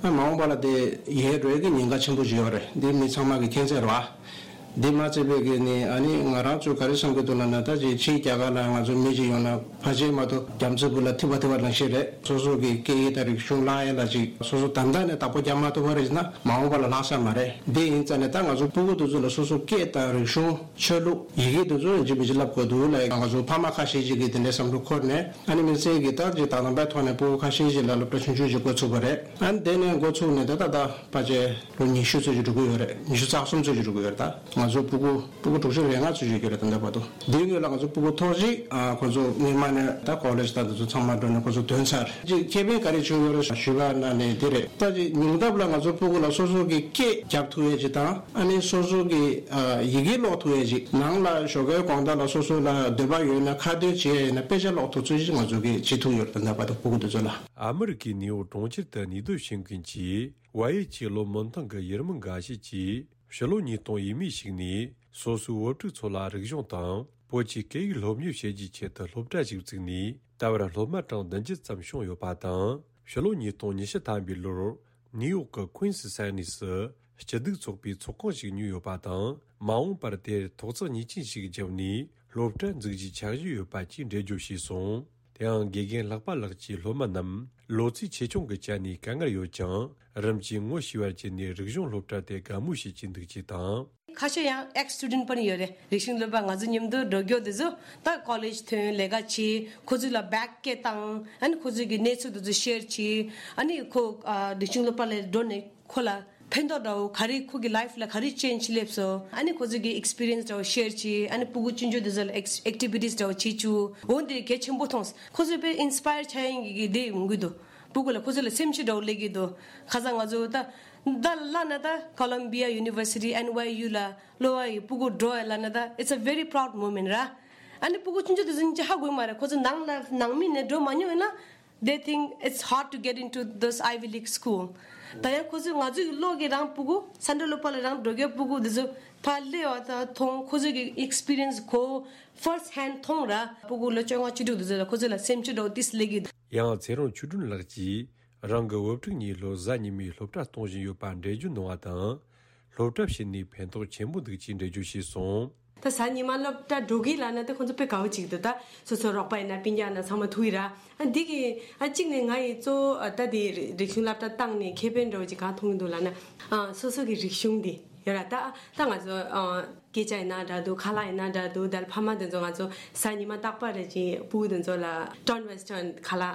ཨ་མ་འོངས་པ་ལ་དེ་ཡལ་འགྲོ་ཡས་ཀྱི་ཉེན་ཁ་ཆེན་པོ་ཞིག་ཡོད་རེད། འདི་མི་ཚང་མ་གི་མཁྱེན་གསལ་རེད་བ། འདི་མ་ཚད་པའི་གི་ནི་ཨ་ནི་ང་རང་ཚོ་ག་རེ་བསམ་གི་འདུག་ལབ་ན། ད་ཅིག་ཕྱིའི་རྒྱ་གར་ལ་ང་ཚོ་མི་ཅིག་ཡོང་ན་ཕལ་ཆེར་མ་གཏོགས་རྒྱ་མཚོའི་སྦུག་ལ་ཐིམ་པ་ཐིམ་པ་ནང་བཞིན་རེད། སོ་སོ་གི་སྐད་ཡིག་དང་རིག་གཞུང་བརླག་ཡས་ལ་ཅིག་སོ་སོ་ད་ལྟ་ནས་བདག་པོ་རྒྱག་མ་ཐུབ་པ་རེད་ཟེར་ན་མ་འོངས་པ་ལ་ལྷག་ས་མ་རེད། འདི་ཡིན་ཙང་ནས་ད་ང་ཚོ་སྤུ་གུ་དེ་ཚོ་ལ་སོ་སོ་སྐད་དང་རིག་གཞུང་། ཆོས་ལུགས། ཡི་གེ་དེ་ཚོ་ཡང་ཅིག་མི་ཅིག་བསླབ་དགོས་འདུག་ལ། ང་ཚོ་ཕ་མ་ཁ་ཤས་ཤིག་གིས་དེ་འདྲའི་བསམ་བློ་འཁོར་ནས་ཨ་ནི་དམིགས་བསལ་གྱིས་ད་ཅིག་ད་དང་པོའི་ཐོག་ནས་སྤུ་གུ་ཁ་ཤས་ཤིག་ལ་སློབ་གྲྭ་ཆུང་ཆུང་ཞིག་འགོ་ཚུགས་པ་རེད། ཨ་ནི་དེ་ནས་འགོ་ཚུགས་ནས་ད་ད་ད་ཕལ་ཆེར་ལོ་ཉི་ཤུ་ཙམ་ཞིག་འགྲོ་གི་ཡོད་རེད། ཉི་ཤུ་རྩ་གསུམ་ཙམ་ཞིག་འགྲོ་གི་ཡོད་རེད། ད་ང་ཚོ་སྤུ་གུ་སྤུ་གུ་དྲུག་ཅུ་རེ་ལྔ་ཙམ་ཞིག་ཡོད་རེད། ད་ལྟ་བར་དུ་འདིའི་སྔོན་ལ་ང་ཚོ་སྤུ་གུ་ཐོག་གཅིག་ཨ་ཁོ་ཚོ་སྔོན་མ་ནས་ད་ཀོ་ལེཇ་ད་དེ་ཚོ་ཚང་མ་འགྲོ་ནས་ཁོ་ཚོ་ཐོན་ཚར། ཅིག་ཁེ་ཕན་ག་རེ་བྱུང་ཡོད་རེད་ཞུས་པ་ན་ནི་དེ་རེད། ད་ཅིག་ཉུང་མཐའ་ལ་ང་ཚོ་སྤུ་གུ་ལ་སོ་སོ་གི་སྐད་རྒྱག་ཐུབ་ཡས་ཅིག་དང་། ཨ་ནི་སོ་སོ་གི་ཨ་ཡི་གེ་ཀློག་ཐུབ་ཡས་ཅིག་ནང་ལ་ཞོགས་ཀའི་དགོང་དག་ལ་སོ་སོ་ལ་འདོད་པ་ཡོད་ན་ཁ་འདོན་བྱེད་ཡས་ཡིན་ན་དཔེ་ཆ་ཀློག་ཐུབ་ཚུལ་ཅིག་ང་ཚོ་གིས་བྱེད་ཐུབ་ཡོད་རེད། ད་ལྟ་བར་དུ་སྤུ་གུ་དེ་ཚོ་ལ། ཨ་མི་རི་ཀའི་ནིའུ་ཡོག་གྲོང་ཁྱེར་དུ་གནས་སྡོད་བྱེད་མཁན་གྱི་ཝ་ཡེ་ཆི་བློ་སྨོན་ཐང་གི་ཡུལ་མི་འགའ་ཞིག་གིས། ཕྱི་ལོ་ཉིས་སྟོང་ཡས་མས་ཤིག་ནས་སོ་སོའི་བུ་ཕྲུག་ཚོ་ལ་རིག་གཞུང་དང་བོད་ཀྱི་སྐད་ཡིག་སློབ་གཉེར་བྱེད་རྒྱུའི་ཆེད་དུ་སློབ་གྲྭ་ཞིག་བཙུགས་ནས་ད་བར་སློབ་མ་གྲངས་བདུན་ཅུ་ཙམ་བྱུང་ཡོད་པ་དང་། ཕྱི་ལོ་ཉིས་སྟོང་ཉི་ཤུ་ཐམ་པའི་ལོར་ནིའུ་ཡོག་གི་ཀུན་སི་ས་གནས་སུ་སྐྱིད་སྡུག་ཚོགས་པའི་ཚོགས་ཁང་ཞིག་ཉོས་ཡོད་པ་དང་། མ་འོངས་པར་དེར་ཐོག་བརྩེགས་གཉིས་ཅན་ཞིག་བརྒྱབ་ནས་སློབ་གྲྭ་འཛུགས་རྒྱུའི་འཆར་གཞི་ཡོད་པ་བཅས་འགྲེལ་བརྗོད་བྱས་སོང་། དེའང་དགེ་རྒན་ལྷག་པ་ལགས་ཀྱིས་སློབ་མ་རྣམས་ལོ་ཚད་ཆེ་ཆུང་གི་ཆ་ནས་དཀའ་ངལ་ཡོད་ཀྱང་། རིམ་གྱིས་ངོ་ཤེས་པར་བྱས་ནས་རིག་གཞུང་སློབ་གྲྭ་དེ་དགའ་མོས་བྱེད་ཀྱིན་འདུག་ཅེས་དང་། ཁ་ཤས་ཡང་ཨེགས་སི་ཊུ་ཌེན་ཊི་པར་ཡོད་རེད། རིག་གཞུང་སློབ་པ་ང་ཚོ་མཉམ་དུ་འགྲོ་རྒྱུ་དེ་ཚོ་ད་ཀོ་ལེཇ་ཐོན་ལས་ཀ་བྱེད། ཁོ་ཚོ་ལ་བེག་སྐད་བཏང་། ཨ་ནི་ཁོ་ཚོ་གི་གནས་ཚུལ་དེ་ཚོ་ཤེར་བྱེད། ཨ་ནི་ཁོ་ཨ་རིག་གཞུང་སློབ་པ་ལ་འགྲོ་ནས་ཁོ་ལ་ཕན་ཐོགས་འདྲ་བོ་ག་རེ། ཁོ་གི་ལའིཕ་ལ་ག་རེ་ཅེན་ཇི་སླེབས་སོང་། ཨ་ནི་ཁོ་ཚོ་གི་ཨེགས་སི་པི་རི་ཡན་སི་འདྲ་བོ་ཤེར་བྱེད། ཨ་ནི་སྤུ་གུ་ཆུང་ཆུང་དེ་ཚོ་ལ་ཨེག་ཨེག་ཊི་བི་ཊི་སི་འདྲ་བོ་བྱེད་བཅུག་འོ་འདི་གལ་ཆེན་པོ་མཐོང་། ཁོ་ཚོ་དཔེ་ཨིན་སི་པ་ཡར་ཆགས་ཡིན་གི་དེ་ཡོང་གི་འདུག་སྤུ་གུ་ལ་ཁོ་ཚོ་ལ་སེམས་ཤུགས་འདྲ་བོ་སླེབས་ཀྱི་འདུག་ཁ་སང་ང་ཚོ་ད་ད་ལབ་ན་ད་ཀོ་ལམ་བི་ཡ་ཡུ་ནི་ཝར་སི་ཊི་ཨེན་ཝའི་ཡུ་ལ་སློབ་པ་ཡི་སྤུ་གུ་འགྲོ་ཡ་ལབ་ན་ད་it's a very proud moment ར། ཨ་ནི་སྤུ་གུ་ཆུང་ཆུང་དེ་ཚོ་ཧ་གོ་གི་མ་རེད། ཁོ་ཚོ་ནང་ལ་ནང་མི་ནས་འགྲོ་མ་མྱོང་ཡིན་ན། They think it's hard to get into those Ivy League school. ད་ཡང་ཁོ་ཚོས་ང་ཚོའི་བློ་གི་རང་སྤུ་གུ་ས་འབྲུ་སློབ་པ་ལ་རང་འགྲོ་རྒྱུ་སྤུ་གུ་འདི་ཚོ་ཕར་སླེབས་པ་དང་མཐོང་། ཁོ་ཚོས་ཀྱི་ཨེགས་སི་པི་རི་ཡན་སི་གོ་ཕར་སི་ཧེན་ཌི་མཐོང་ར། སྤུ་གུ་ལོ་བཅོ་ལྔ་བཅུ་དྲུག་འདི་ཚོ་ལ་ཁོ་ཚོ་ལ་སེམས་ཤུགས་འདྲ་བོ་ཏིས་སླེབས་ཀྱི་འདུག་ཡང་ཚེ་རིང་ཆོས་སྒྲོན་ལགས་ཀྱིས་རང་གི་བུ་ཕྲུག་གཉིས་ལོ་གཟའ་ཉི་མའི་སློབ་གྲྭ་གཏོང་བཞིན་ཡོད་པ་འགྲེལ་བརྗོད་གནང་བ་དང་། སློབ་གྲྭ་ཕྱིན་ནས་ཕན་ཐོགས་ཆེན་པོ་འདུག་ཅེས་འགྲེལ་བརྗོད་བྱས་སོང་། ད་གཟའ་ཉི་མ་སློབ་གྲྭ་འགྲོ་གི་ལབ་ན་ད་ཁོང་ཚོ་དཔེ་དགའ་བོ་ཅིག་འདུག་ད་སོ་སོ་རོགས་པ་ཡིན་ན་སྤུན་ཀྱག་ན་ཚང་མ་ཐུག་ཡི་ར། ཨ་འདི་གི་ཨ་གཅིག་ནས་ང་ཡི་གཙོ་བོ་ཨ་ད་དེ་རི་རིག་གཞུང་སློབ་གྲྭ་བཏང་ནས་ཁེ་ཕན་འདྲ་བོ་ཅིག་གང་མཐོང་གི་འདུག་ལབ་ན། ཨ་སོ་སོ་གི་རིག་གཞུང་འདི་ཡོད་ར། ད་ད་ང་ཚོ་ཨ་སྐད་ཆ་ཡིན་ན་འདྲ་འདུག་ཁ་ལག་ཡིན་ན་འདྲ་འདུག་ད་ཕ་མ་དེ་ཚོ་ང་ཚོ་གཟའ་ཉི་མ་རྟག་པར་རེ་བཞིན་སྤུ་གུ་དེ་ཚོ་ལ་ཊོན་ཝེ་སི་ཊརན་ཁ་ལག་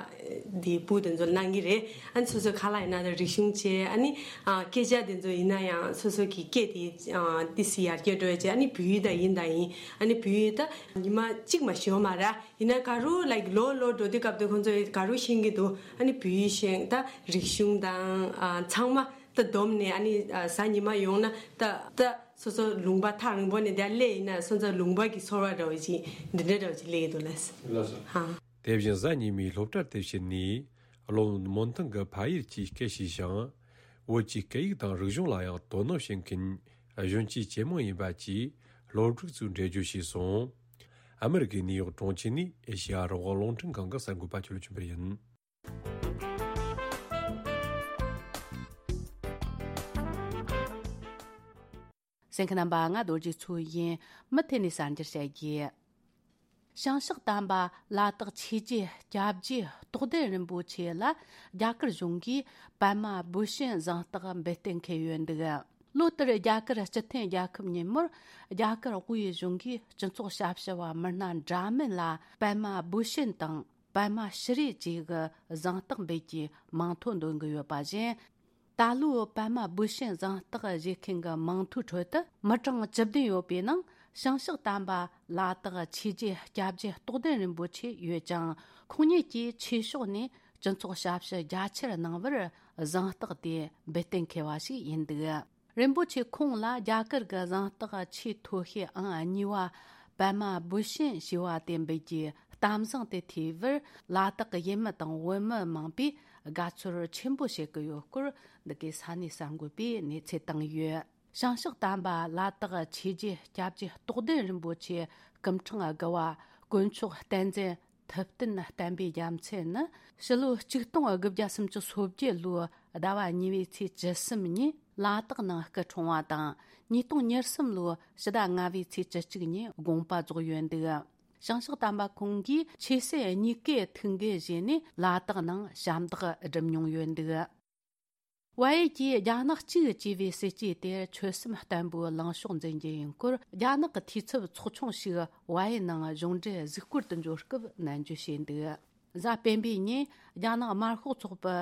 འདི་སྤུ་གུ་དེ་ཚོ་ལ་གནང་གི་རེད། ཨ་ནི་སོ་སོའི་ཁ་ལག་ཡིན་ན་ད་རིག་གཞུང་བྱས། ཨ་ནི་ཨ་སྐད་ཆ་དེ་ཚོ་ཡིན་ན་ཡང་སོ་སོ་གི་སྐད་དེ་ཨ་ཏི་སི་ཡར་རྒྱས་འགྲོ་ཡ་བྱས། ཨ་ནི་བོད་ཡིག་ད་ཡིན་ད་ཡིན། ཨ་ནི་བོད་ཡིག་ད་ཉི་མ་གཅིག་མ་ཤོར་མ་ར། ཡིན་ན་ག་རུ་ལའིཀ་ལོ་ལོ་འགྲོ་དུས་སྐབས་དེ་ཁོང་ཚོ་ག་རུ་ཤེས་ཀྱི་འདུག་ཨ་ནི་བོད་ཡིག་ཤེས། ད་རིག་གཞུང་དང་ཨ་ཚང་མ་ད་བསྡོམས་ནས་ཨ་ནི་ཨ་གཟའ་ཉི་མ་ཡོང་ན་ད་ད་སོ་སོ་ལུང་པ་ཐག་རིང་པོ་ནས་དེ་སླེབས་ཡིན་ན་སོ་སོ་ལུང་པ་གི་ཚོར་བ་འདྲ་བོ་ཅིག་འདི་འདྲ་འདྲ་བོ་ཅིག་སླེབས་ཀྱི་འདུག་ལགས། ལགས་སོ། ཧ། དེ་བཞིན་གཟའ་ཉི་མའི་སློབ་གྲྭར་དེ་ཕྱིན་ནས་བློ་སྨོན་ཐང་གི་ཕ་ཡུལ་གྱི་སྐད་ཤེས་ཤིང་། བོད་ཀྱི་སྐད་ཡིག་དང་རིག་གཞུང་ལ་ཡང་དོ་སྣང་བྱེད་མཁན་གཞོན་སྐྱེས་ཇེ་མང་ཡིན་པ་བཅས་སློབ་ཕྲུག་ཚོས་འགྲེལ་བརྗོད་བྱས་སོང་། ཨ་མི་རི་ཀའི་ནིའུ་ཡོག་གྲོང་ཁྱེར་ནས་ཨེ་ཤེ་ཡ་རང་དབང་རླུང་འཕྲིན་ཁང་གི་གསར་འགོད་པ་ཆོས་ལ་ཆོས་འཕེལ་ཡིན། གསན་མཁན་རྣམ་པ། ང་རྡོ་རྗེ་མཚོ་ཡིན། མུ་མཐུད་ནས་གསར་འགྱུར་བཤད་རྒྱུ། ཞིང་གཤེགས་དམ་པ་ལ་དྭགས་ཆོས་རྗེ་སྐྱབས་རྗེ་རྟོགས་ལྡན་རིན་པོ་ཆེ་ལ་རྒྱ་གར་གཞུང་གིས་པདྨ་བི་ཤན་གཟེངས་རྟགས་འབུལ་གཏན་འཁེལ་ཡོད་འདུག། ལོ་ལྟར་རྒྱ་གར་སྤྱི་མཐུན་རྒྱལ་ཁབ་ཉིན་མོར་རྒྱ་གར་དབུས་གཞུང་གིས་སྤྱི་ཚོགས་ཞབས་ཞུ་བ་མི་སྣ་འདྲ་མིན་ལ་པདྨ་བི་ཤན་དང་པདྨ་ཤྲི་བཅས་ཀྱི་གཟེངས་རྟགས་འབུལ་རྒྱུའི་མིང་ཐོ་འདོན་གྱི་ཡོད་པ་བཞིན། ད་ལོའི་པདྨ་བི་ཤན་གཟེངས་རྟགས་བཞེས་མཁན་གྱི་མིང་ཐོའི་ཁྲོད་དུ་མི་གྲངས་བཅུ་བདུན་ཡོད་པའི་ནང་ཞིང་གཤེགས་དམ་པ་ལ་དྭགས་ཆོས་རྗེ་སྐྱབས་རྗེ་རྟོགས་ལྡན་རིན་པོ་ཆེ་ཡོད་ཅིང་། ཁོང་ཉིད་ཀྱིས་ཆོས་ཕྱོགས་ནས་སྤྱི་ཚོགས་ཞབས་ཞུ་རྒྱ་ཆེར་གནང་བར་གཟེངས་རྟགས་དེ་འབུལ་གཏན་འཁེལ་བ་ཞིག་ཡིན་འདུག། རིན་པོ་ཆེ་ཁོང་ལ་རྒྱ་གར་གྱི་གཟེངས་རྟགས་ཆེས་མཐོ་ཤོས་ཨང་གཉིས་པ་པདྨ་བི་ཤན་ཞེས་པ་དེ་འབུལ་རྒྱུའི་གཏམ་བཟང་དེ་ཐོས་པར་ལ་དྭགས་ཀྱི་ཡུལ་མི་དང་བོད་མི་མང་པོས་དགའ་ཚོར་ཆེན་པོ་བྱེད་ཀྱི་ཡོད་སྐོར་འདི་གའི་ས་གནས་གསར་འགོད་པས་གནས་ཚུལ་བཏང་ཡོད། བྱང་ཕྱོགས་དམ་པ་ལ་དྭགས་ཆོས་རྗེ་སྐྱབས་རྗེ་རྟོགས་ལྡན་རིན་པོ་ཆེ་སྐུ་ཕྲེང་དགུ་བ་དཀོན་མཆོག་བསྟན་འཛིན་ཐུབ་བསྟན་བསྟན་པའི་རྒྱལ་མཚན་ནི་ཕྱི་ལོ་ཆིག་སྟོང་དགུ་བརྒྱ་སུམ་ཅུ་སོ་བརྒྱད་ལོའི་ཟླ་བ་གཉིས་པའི་ཚེས་བཅུ་གསུམ་ཉིན་ལ་དྭགས་ནང་སྐུ་འཁྲུངས་པ་དང་། ཉིས་སྟོང་ཉེར་གསུམ་ལོའི་ཕྱི་ཟླ་ལྔ་པའི་ཚེས་བཅུ་གཅིག་ཉིན་དགོངས་པ་རྫོགས་ཡོད་འདུག་བྱང་ཕྱོགས་དམ་པ་ཁོང་གིས་ཆོས་སྲིད་གཉིས་ཀའི་ཐུགས་འགན་བཞེས་ནས་ལ་དྭགས་ནང་ཞབས་འདེགས་བསྒྲུབས་མྱོང་ཡོད་འདུག་བལ་ཡུལ་གྱིས་རྒྱ་ནག་གཅིག་ཅེས་པའི་སྲིད་ཇུས་དེར་ཆོད་སེམས་བརྟན་པོས་ལངས་ཕྱོགས་འཛིན་རྒྱུ་ཡིན་སྐོར། རྒྱ་ནག་གི་འཐུས་ཚབ་ཚོགས་ཆུང་ཞིག་བལ་ཡུལ་ནང་གཞུང་འབྲེལ་གཟིགས་སྐོར་དུ་འབྱོར་སྐབས་ནན་བརྗོད་བྱས་འདུག་གཟའ་སྤེན་པའི་ཉིན་རྒྱ་ནག་དམར་ཤོག་ཚོགས་པའི་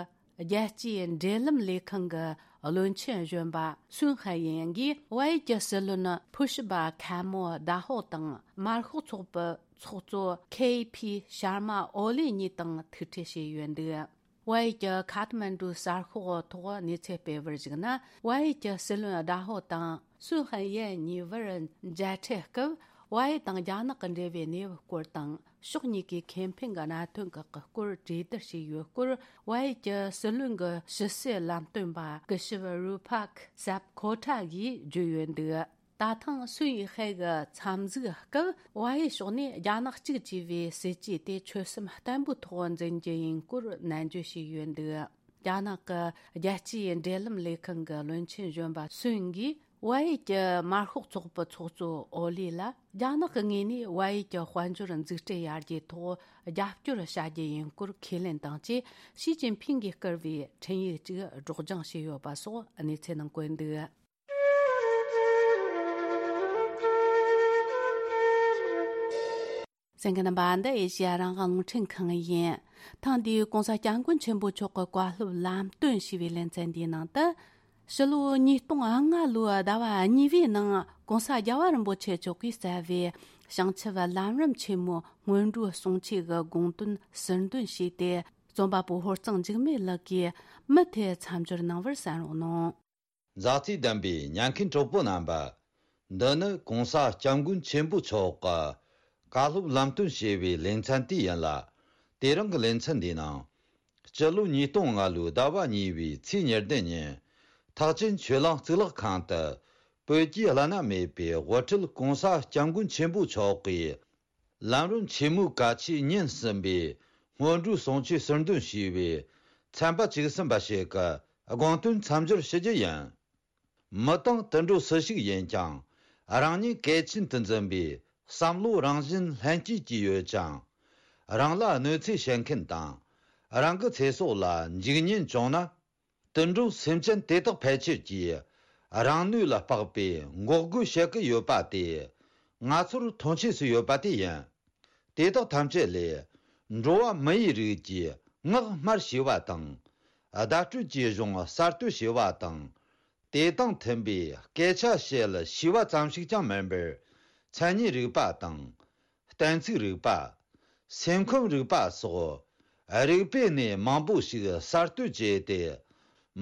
རྒྱལ་སྤྱིའི་འབྲེལ་ལམ་ལས་ཁང་གི་བློན་ཆེན་གཞོན་པ་སུན་ཧའེ་ཡན་གྱིས་བལ་ཡུལ་གྱི་སྲིད་བློན་ཕུ་ཤི་པ་ཁ་མོ་ད་ཧོ་དང་། དམར་ཤོག་ཚོགས་པའི་ཚོགས་གཙོ་ཁེ་ཕི་ཤར་མ་ཨོ་ལི་གཉིས་དང་ཐུག་འཕྲད་བྱས་ཡོད་འདུག་བལ་ཡུལ་གྱི་ཁ་ཐ་མན་གྲུའི་གསར་ཤོག་ཐོག་གནས་ཚུལ་སྤེལ་བར་གཞིགས་ན། བལ་ཡུལ་གྱི་སྲིད་བློན་ཟླ་ཧོ་དང་སུན་ཧན་ཡན་གཉིས་བར་མཇལ་འཕྲད་སྐབས། བལ་ཡུལ་དང་རྒྱ་ནག་གི་འབྲེལ་བའི་གནས་བབ་སྐོར་དང་། ཕྱོགས་གཉིས་ཀའི་ཁེ་ཕན་གྱི་གནད་དོན་ཁག་གི་སྐོར་གྲོས་བསྡུར་བྱས་ཡོད་སྐོར། བལ་ཡུལ་གྱི་སྲིད་བློན་གྱི་ཕྱི་སྲིད་ལམ་སྟོན་པ་སྐུ་ཞབས་རུ་ཕག་སབ་ཁོ་ཁྲ་གིས་བརྗོད་ཡོད་འདུག་ད་ཐེངས་སུན་ཡི་ཧེ་གི་འཚམས་གཟིགས་སྐབས། བལ་ཡུལ་ཕྱོགས་ནས་རྒྱ་ནག་གཅིག་ཅེས་པའི་སྲིད་ཇུས་དེ་ཆོད་སེམས་བརྟན་པོའི་ཐོག་འཛིན་རྒྱུ་ཡིན་སྐོར་ནན་བརྗོད་བྱས་ཡོད་འདུག་རྒྱ་ནག་གི་རྒྱལ་སྤྱིའི་འབྲེལ་ལམ་ལས་ཁང་གི་བློན་ཆེན་གཞོན་པ་སུན་གྱིས། བལ་ཡུལ་གྱི་དམར་ཤོག་ཚོགས་པའི་ཚོགས་གཙོ་ཨོ་ལི་ལ། རྒྱ་ནག་གི་ངོས་ནས་བལ་ཡུལ་གྱི་དཔལ་འབྱོར་འཛུགས་སྐྲུན་ཡར་རྒྱས་ཐོག་རྒྱབ་སྐྱོར་བྱ་རྒྱུ་ཡིན་སྐོར་ཁས་ལེན་དང་བཅས། ཞི་ཅིན་ཕིང་གིས་བསྐུར་བའི་འཕྲིན་ཡིག་ཅིག་སྒྲོག་སྦྱང་བྱས་ཡོད་པ་སོགས་གནས་ཚུལ་ནང་བཀོད་འདུག་གསན་མཁན་རྣམ་པ། འདི་ཨེ་ཤེ་ཡ་རང་དབང་རླུང་འཕྲིན་ཁང་ཡིན། ཐེངས་འདིའི་༸གོང་ས་༸སྐྱབས་མགོན་ཆེན་པོ་མཆོག་གི་བཀའ་སློབ་ལམ་སྟོན་ཞེས་པའི་ལེ་ཚན་འདིའི་ནང་དུ། ཕྱི་ལོ་ཉིས་སྟོང་ལྔ་ལོའི་ཟླ་བ་གཉིས་པའི་ནང་༸གོང་ས་རྒྱལ་བ་རིན་པོ་ཆེ་མཆོག་གིས་སྩལ་བའི་བྱང་ཆུབ་ལམ་རིམ་ཆེན་མོའི་སྔོན་འགྲོའི་གསུང་ཆོས་ཀྱི་དགོངས་དོན་ཟུར་འདོན་བྱས་ཏེ། རྩོམ་པ་པོ་ཧོར་གཙང་འཇིགས་མེད་ལགས་ཀྱིས་མུ་མཐུད་མཚམས་སྦྱོར་གནང་བར་གསན་རོགས་གནང་། མཛའ་བརྩེ་ལྡན་པའི་ཉན་མཁན་གྲོགས་པོ་རྣམ་པ། འདི་ནི་༸གོང་ས་༸སྐྱབས་མགོན་ཆེན་པོ་མཆོག་གི་བཀའ་སློབ་ལམ་སྟོན་ཞེས་པའི་ལེ་ཚན་དེ་ཡིན་ལ། དེ་རིང་གི་ལེ་ཚན་འདིའི་ནང་། སྤྱི་ལོ་ཉིས་སྟོང་ལྔ་ལོའི་ཟླ་བ་གཉིས་པའི་ཚེས་ཉེར་བདུན་ཉིན། ཐེག་ཆེན་ཆོས་གླིང་གཙུག་ལག་ཁང་དུ། བོད་ཀྱི་བླ་ན་མེད་པའི་དབུ་ཁྲིད་༸གོང་ས་༸སྐྱབས་མགོན་ཆེན་པོ་མཆོག་གིས། ལམ་རིམ་ཆེན་མོའི་བཀའ་ཆོས་ཉིན་གསུམ་པའི་སྔོན་འགྲོའི་གསུང་ཆོས་ཟུར་འདོན་ཞུས་པའི་ཚན་པ་བཅུ་གསུམ་པ་ཞིག་གི་དགོངས་དོན་མཚམས་སྦྱོར་ཞུ་རྒྱུ་ཡིན། མི་དང་དུད་འགྲོ་སུ་ཞིག་ཡིན་ཀྱང་། རང་ཉིད་གལ་ཆེན་དུ་འཛིན་པའི་བསམ་བློ་རང་བཞིན་ལྷན་སྐྱེས་ཀྱི་ཡོད་ཅིང་། རང་ལ་གནོད་འཚེ་བྱེད་མཁན་དང་། རང་གི་ཚེ་སྲོག་ལ་འཇིགས་ཉེན་བྱུང་ན། དུད་འགྲོ་སེམས་ཅན་དེ་དག་ཕལ་ཆེར་གྱིས་རང་ནུས་ལ་དཔག་པའི་འགོག་རྒོལ་བྱེད་ཀྱི་ཡོད་པ་དེ། ང་ཚོར་མཐོང་ཆོས་སུ་ཡོད་པ་དེ་ཡིན། དེ་དག་ཐམས་ཅད་ལས་འགྲོ་བ་མི་ཡི་རིགས་ཀྱི་ངག་སྨྲར་ཞེས་པ་དང་། བརྡ་སྤྲོད་ཀྱི་གཞུང་གསར་གཏོད་ཞེས་པ་དང་། དེ་དང་མཐུན་པའི་སྐད་ཆ་བཤད་ཞེས་པ་ཙམ་ཞིག་ཀྱང་མིན་པར། མཚན་ཉིད་རིག་པ་དང་། གཏན་ཚིགས་རིག་པ། སེམས་ཁམས་རིག་པ་སོགས་རིག་པའི་གནས་མང་པོ་ཞིག་གསར་གཏོད་བྱས་ཏེ།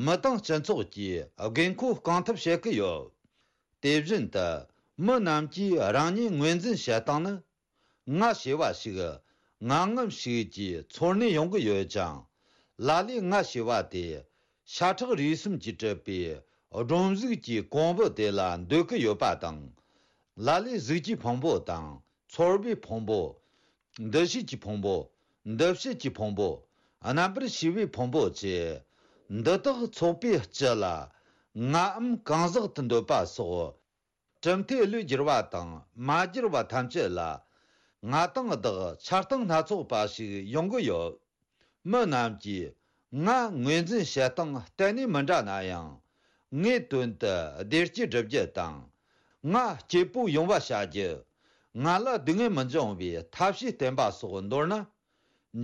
མི་དང་སྤྱི་ཚོགས་ཀྱི་དགོས་མཁོ་སྐོང་ཐབས་བྱེད་ཀྱི་ཡོད། དེ་བཞིན་དུ་མི་རྣམས་ཀྱིས་རང་ཉིད་ངོས་འཛིན་བྱེད་སྟངས་ནི། ང་ཞེས་པ་ཞིག་ངང་ངམ་ཞིག་གིས་ཚོར་ནས་ཡོང་གི་ཡོད་ཅིང་། ལ་ལས་ང་ཞེས་པ་དེ་ཤ་ཁྲག་རུས་གསུམ་གྱིས་གྲུབ་པའི་སྒྲོམ་གཟུགས་ཀྱི་ཀོང་བུ་དེ་ལ་འདོད་ཀྱི་ཡོད་པ་དང་། ལ་ལས་གཟུགས་ཀྱི་ཕུང་པོ་དང་། ཚོར་བའི་ཕུང་པོ། འདུ་ཤེས་ཀྱི་ཕུང་པོ། འདུ་བྱེད་ཀྱི་ཕུང་པོ། རྣམ་པར་ཤེས་པའི་ཕུང་པོ་བཅས། འདི་དག་ཚོགས་པའི་སྤྱི་ལ་ངའམ་གང་ཟག་ཏུ་འདོད་པ་སོགས། གྲུབ་མཐས་བློས་བསྒྱུར་བ་དང་མ་བསྒྱུར་བ་ཐམས་ཅད་ལ། ང་དང་བདག་ཆགས་སྡང་སྣ་ཚོགས་པ་ཞིག་ཡོང་གི་ཡོད། མི་རྣམས་ཀྱིས་ང་ངོས་འཛིན་བྱེད་སྟངས་གཏན་ནས་མི་འདྲ་ན་ཡང་། ངའི་དོན་དུ་བདེ་སྐྱིད་སྒྲུབ་རྒྱུ་དང་། ང་སྐྱིད་པོ་ཡོང་བ་བྱ་རྒྱུ། ང་ལ་སྡུག་བསྔལ་མི་འབྱུང་བའི་ཐབས་ཤེས་བསྟེན་པ་སོགས་འདོར་ན།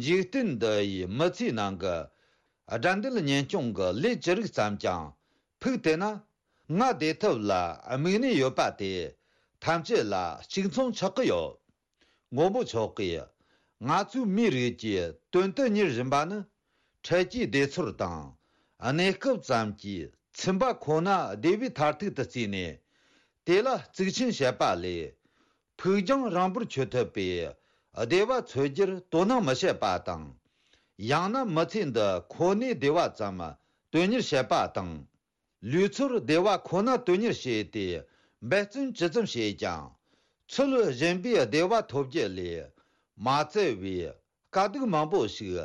འཇིག་རྟེན་འདི་ཡི་མི་ཚེའི་ནང་གི་དགྲ་འདུལ་གཉེན་སྐྱོང་གི་ལས་ཅི་རིགས་ཙམ་ཀྱང་ཕུགས་བཏུད་ན། ང་བདེ་ཐབས་ལ་དམིགས་ནས་ཡོད་པ་དེ་ཐམས་ཅད་ལ་གཅིག་མཚུངས་ཆགས་ཀྱི་ཡོད། མགོན་པོ་མཆོག་གིས་ང་ཚོའི་མིའི་རིགས་ཀྱི་དོན་དུ་གཉེར་བཞིན་པ་ནི། འཕྲལ་གྱི་བདེ་ཚོར་དང་། གནས་སྐབས་ཙམ་གྱི་ཚིམ་པ་ཁོ་ན་བདེ་བའི་མཐར་ཐུག་ཏུ་བརྩིས་ནས། དེ་ལ་གཙིགས་ཆེན་བྱེད་པ་ལས། ཕུགས་རྒྱང་རིང་པོར་འཁྱོལ་ཐུབ་པའི་བདེ་བ་འཚོལ་རྒྱུར་དོ་སྣང་མི་བྱེད་པ་དང་། ཡང་ན་མི་ཚེ་འདི་ཁོ་ནའི་བདེ་བ་ཙམ་དོན་གཉེར་བྱེད་པ་དང་། ལུས་ཚོར་བདེ་བ་ཁོ་ན་དོན་གཉེར་བྱས་ཏེ་འབད་བརྩོན་ཇི་ཙམ་བྱས་ཀྱང་། ཚུལ་གཞན་པའི་བདེ་བ་ཐོབ་རྒྱུ་ལས་མ་བཙལ་བའི་དཀའ་སྡུག་མང་པོ་ཞིག་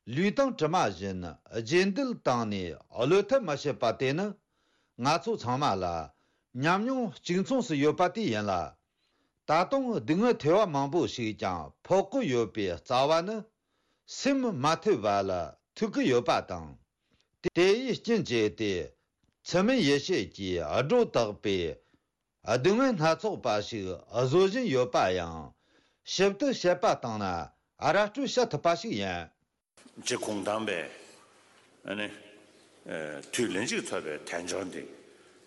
ལུས་དང་གྲིབ་མ་བཞིན་རྗེས་འདེད་བཏང་ནས་བློས་ཐབས་མ་བྱེད་པ་དེ་ནི། ང་ཚོ་ཚང་མ་ལ་ཉམས་མྱོང་གཅིག་མཚུངས་སུ་ཡོད་པ་དེ་ཡིན་ལ། ད་དུང་སྡུག་བསྔལ་ཐེ་བ་མང་པོ་ཞིག་ཀྱང་ཕོག་གི་ཡོད་པའི་རྩ་བ་ནི། སེམས་མ་ཐུལ་བ་ལ་ཐུག་གི་ཡོད་པ་དང་། དེ་ཡི་རྐྱེན་བྱས་ཏེ། མཚན་མོའི་ཡེ་ཤེས་ཀྱིས་སྒྲོ་བཏགས་པའི་སྡུག་བསྔལ་སྣ་ཚོགས་པ་ཞིག་བཟོ་བཞིན་ཡོད་པ་ཡང་། ཞིབ་ཏུ་དཔྱད་པ་བཏང་ན་ར་སྤྲོད་བྱ་ཐུབ་པ་ཞིག་ཡིན། རྗེ་གུང་ཐང་པས་ཨ་ནི། ཨེ། དུས་ལན་གཅིག་ཐོབ་པའི་དལ་འབྱོར་འདི།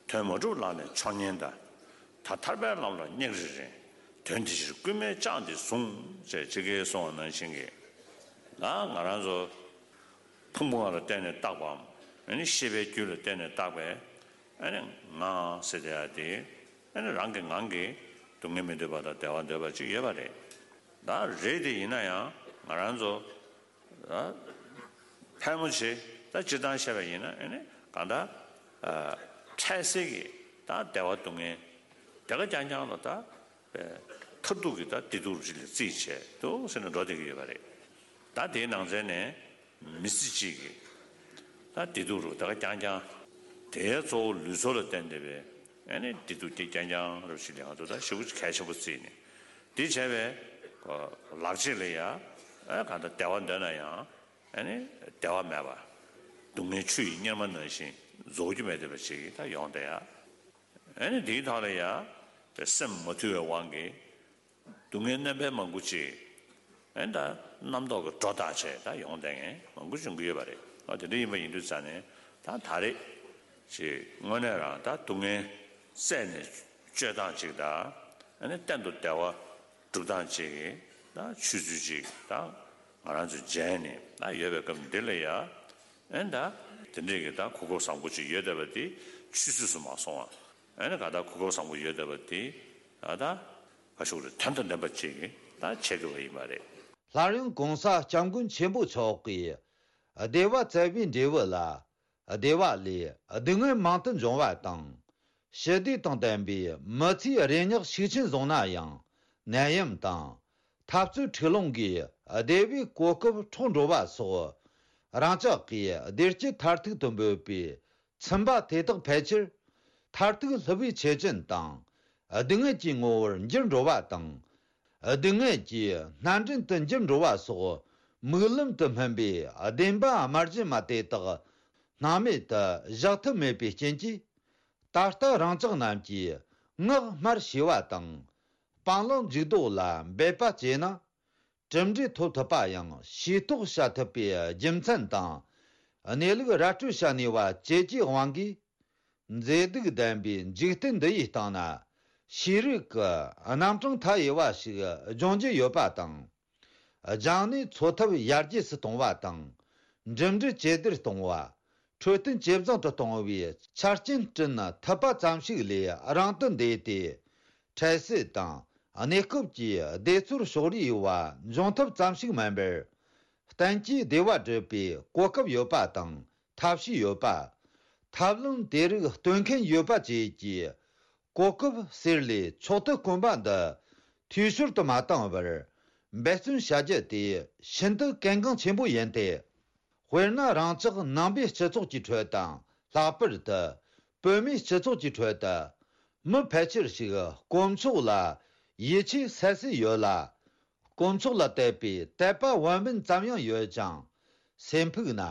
དོན་མ་གྲུབ་ལག་ལེན་མཆོག་ཉན་དང་། ད་ཐར་པའི་ལམ་ལ་སྙེག་རེ་རེ། དོན་དེ་ཕྱིར་རྐུན་མས་བཅག་འདི་བཟུང་། ཅེས་ཅི་གེ་གསུངས་པ་ནང་བཞིན་གྱི། ད་ང་རང་ཚོ་ཕུང་པོ་ལ་བརྟེན་ནས་བཏགས་པའམ། ཨ་ནི་ཤེས་པའི་རྒྱུད་ལ་བརྟེན་ནས་བཏགས་པའི་ཨ་ནི་ངང་ཟེར་བསྡད་ཡ་དེ། ཨ་ནི་རང་གི་ངང་གིས་སྡུག་བསྔལ་མི་འདོད་པ་དང་བདེ་བ་འདོད་པ་ཅིག་ཡོད་པ་རེད། ད་རེད་དེ་ཡིན་ན་ཡང་ང་རང་ཚོ། ཕལ་མོ་ཆེ་ད་སྤྱིར་བཏང་བཤད་པ་ཡིན་ན་ཨ་ནི་གང་ལྟར། འཕྲལ་སེལ་གྱི་ད་བདེ་བ་སྡུག་བསྔལ་དེ་ག་རྐྱང་རྐྱང་ལ་ད་མཐར་ཐུག་གི་ད་བདེ་སྡུག་རུ་ཅིག་ལ་རྩིས་བྱས་འདུག་ཟེར་ནས་འགྲོ་བསྡད་ཀྱི་ཡོད་པ་རེད། ད་དེའི་ནང་ཚན་ནས་མི་ཚེ་གཅིག་གི་ད་བདེ་སྡུག་རུ་དེ་ག་རྐྱང་རྐྱང་དེའི་གཙོ་བོ་ལུས་སྲོག་ལ་བརྟེན་བསྡད་པའི་ཨ་ནི་བདེ་སྡུག་དེ་རྐྱང་རྐྱང་རུ་ཅིག་ལ་ང་ཚོ་ད་ཞེ་པོ་གལ་ཆེན་པོ་བརྩིས་ནས། དེ་བྱས་པས་ལག་རྗེས་ལ་ཡ། ཨ་གང་ལྟར་བདེ་བ་འདོད་ན་ཡང་ཨ་ནི་བདེ་བ་མེད་པ། སྡུག་བསྔལ་ཆུ་ཡི་གཉེར་མ་ནང་བཞིན་རྫོགས་རྒྱུ་མེད་བསྡད་པ་ཞིག་ད་ཡོང་བསྡད་ཡ། ཨ་ནི་དེའི་ཐོག་ལ་ཡ། སེམས་མ་ཐུལ་བའི་དབང་གིས་སྡུག་བསྔལ་རྣམ་པ་མང་པོ་ཅིག་ཨ་ནི་ད་རྣམ་རྟོག་གི་སྒྲོ་བཏགས་བྱས་ད་ཡོང་བསྡད་མཁན་མང་པོ་བྱུང་གི་ཡོད་པ་རེད། ཨ་དེ་འདྲ་ཡིན་པ་ཡིན་དུས་ཙང་ནས་ད་ད་རེས་ཅིག་དངོས་གནས་རང་ད་སྡུག་བསྔལ་བསལ་ནས་སྤྱོད་སྟངས་ཅིག་དང་། ཨ་ནི་གཏན་དུ་བདེ་བ་སྒྲུབ་སྟངས་ཅིག་གི་ད་ཆོས་ཚུལ་ཅིག་ད་ང་རང་ཚོ་མཇལ་ནས་ད་ཡོད་པའི་སྐབས་འདི་ལ་ཡ། ཨ་ནི་ད་དེ་འདྲས་ཀྱི་ད་གོ་སྐབས་བཟང་པོ་ཅིག་ཡོད་བསྡད་པ་དེ་ཆུད་ཟོས་སུ་མ་སོང་བ། ཨ་ནི་ག་ད་གོ་སྐབས་བཟང་པོ་ཡོད་བསྡད་པ་དེ་ད་ད་ག་ཤུགས་རེ་དོན་དང་ལྡན་པ་ཅིག་ད་བྱེད་དགོས་པ་ཡིན་པ་རེད། སླར་ཡང་གོང་ས་སྐྱབས་མགོན་ཆེན་པོ་མཆོག་གིས་བདེ་བ་བཙལ་བའི་འབྲས་བུ་ལ། བདེ་བ་ལས་སྡུག་བསྔལ་མང་དུ་འབྱུང་བ་དང་། ཞི་བདེ་དང་ལྡན་པའི་མི་ཚེའི་རེ་སྙེག་ཤུགས་ཆེན་བཟུང་ན་ཡང་ནད་ཡམས་དང་འཐབ་རྩོད་འཁྲུག་ལོང་གིས་བདེ་བའི་གོ་སྐབས་འཕྲོག་འགྲོ་བ་སོགས། རང་ཅག་གིས་བདེ་སྐྱིད་མཐར་ཐུག་ཏུ་འབོད་པའི་ཚིམ་པ་དེ་དག་ཕལ་ཆེར་མཐར་ཐུག་སླུ་བའི་ཆེ་ཆུང་དང་སྡུག་བསྔལ་གྱི་ངོ་བོར་འགྱུར་འགྲོ་བ་དང་། སྡུག་བསྔལ་གྱི་སྣ་འདྲེན་དུ་འགྱུར་འགྲོ་བ་སོགས་མིག་ལམ་དུ་སྨིན་པའི་བདེན་པ་དམར་རྗེན་མ་དེ་དག་སྣང་མེད་དུ་བཞག་ཐབས་མེད་པའི་རྐྱེན་གྱིས། ད་ལྟ་རང་ཅག་རྣམས་ཀྱིས་ངག་སྨྲ་ཤེས་པ་དང་། སྤང་བླང་འཇུག་ལྡོག་ལ་འབད་པ་བྱས་ན། གྲུབ་འབྲས་ཐོབ་ཐུབ་པ་ཡང་ཤེས་རྟོགས་བྱ་ཐུབ་པའི་རྒྱུ་མཚན་དང་། གནས་ལུགས་ར་སྤྲོད་བྱ་ནུས་པ་བཅས་ཀྱི་དབང་གིས། མཛེས་སྡུག་ལྡན་པའི་འཇིག་རྟེན་འདི་ཡི་སྟེང་ན། ཤེས་རིག་གི་རྣམ་གྲངས་མཐའ་ཡས་པ་ཞིག་སྦྱོང་རྒྱུ་ཡོད་པ་དང་། སྦྱངས་ནས་འཚོ་ཐབས་ཡར་རྒྱས་སུ་གཏོང་བ་དང་། འགྲིམ་འགྲུལ་ཇེ་བདེར་གཏོང་བ། འཕྲོད་བསྟེན་ཇེ་བཟང་དུ་གཏོང་བའི་ཆ་རྐྱེན་བསྐྲུན་ཐུབ་པ་ཙམ་ཞིག་ལས་རིང་དུ་འདས་ཏེ། འཕྲལ་སེལ་དང་གནས་སྐབས་ཀྱི་བདེ་ཚོར་ཕྱོགས་རིས་ཡོད་པ་འབྱུང་ཐབས་ཙམ་ཞིག་མིན་པར། གཏན་གྱི་བདེ་བ་སྒྲུབ་པའི་གོ་སྐབས་ཡོད་པ་དང་ཐབས་ཤེས་ཡོད་པ། ཐབས་ལམ་དེ་རིགས་སྟོན་མཁན་ཡོད་པ་བཅས་ཀྱི་གོ་སྐབས་ཟེར་ལས་མཆོག་ཏུ་དཀོན་པ་འདི་འཐུས་ཤོར་དུ་མ་བཏང་བར་འབད་བརྩོན་བྱ་རྒྱུ་དེ་ཤིན་ཏུ་གལ་འགངས་ཆེན་པོ་ཡིན་ཏེ། དཔེར་ན་རང་ཅག་ནང་པའི་སྤྱི་ཚོགས་ཀྱི་ཁྲོད་དང་ལྷག་པར་དུ་བོད་མིའི་སྤྱི་ཚོགས་ཀྱི་ཁྲོད་དུ་མི་ཕལ་ཆེར་ཞིག་དཀོན་མཆོག་ལ་ཡིད་ཆེས་གསལ་གསལ་ཡོད་ལ། དཀོན་མཆོག་ལ་དད་པའི་དད་པ་བན་བོན་ཙམ་ཡང་ཡོད་ཅིང་། སེམས་ཕུགས་ན་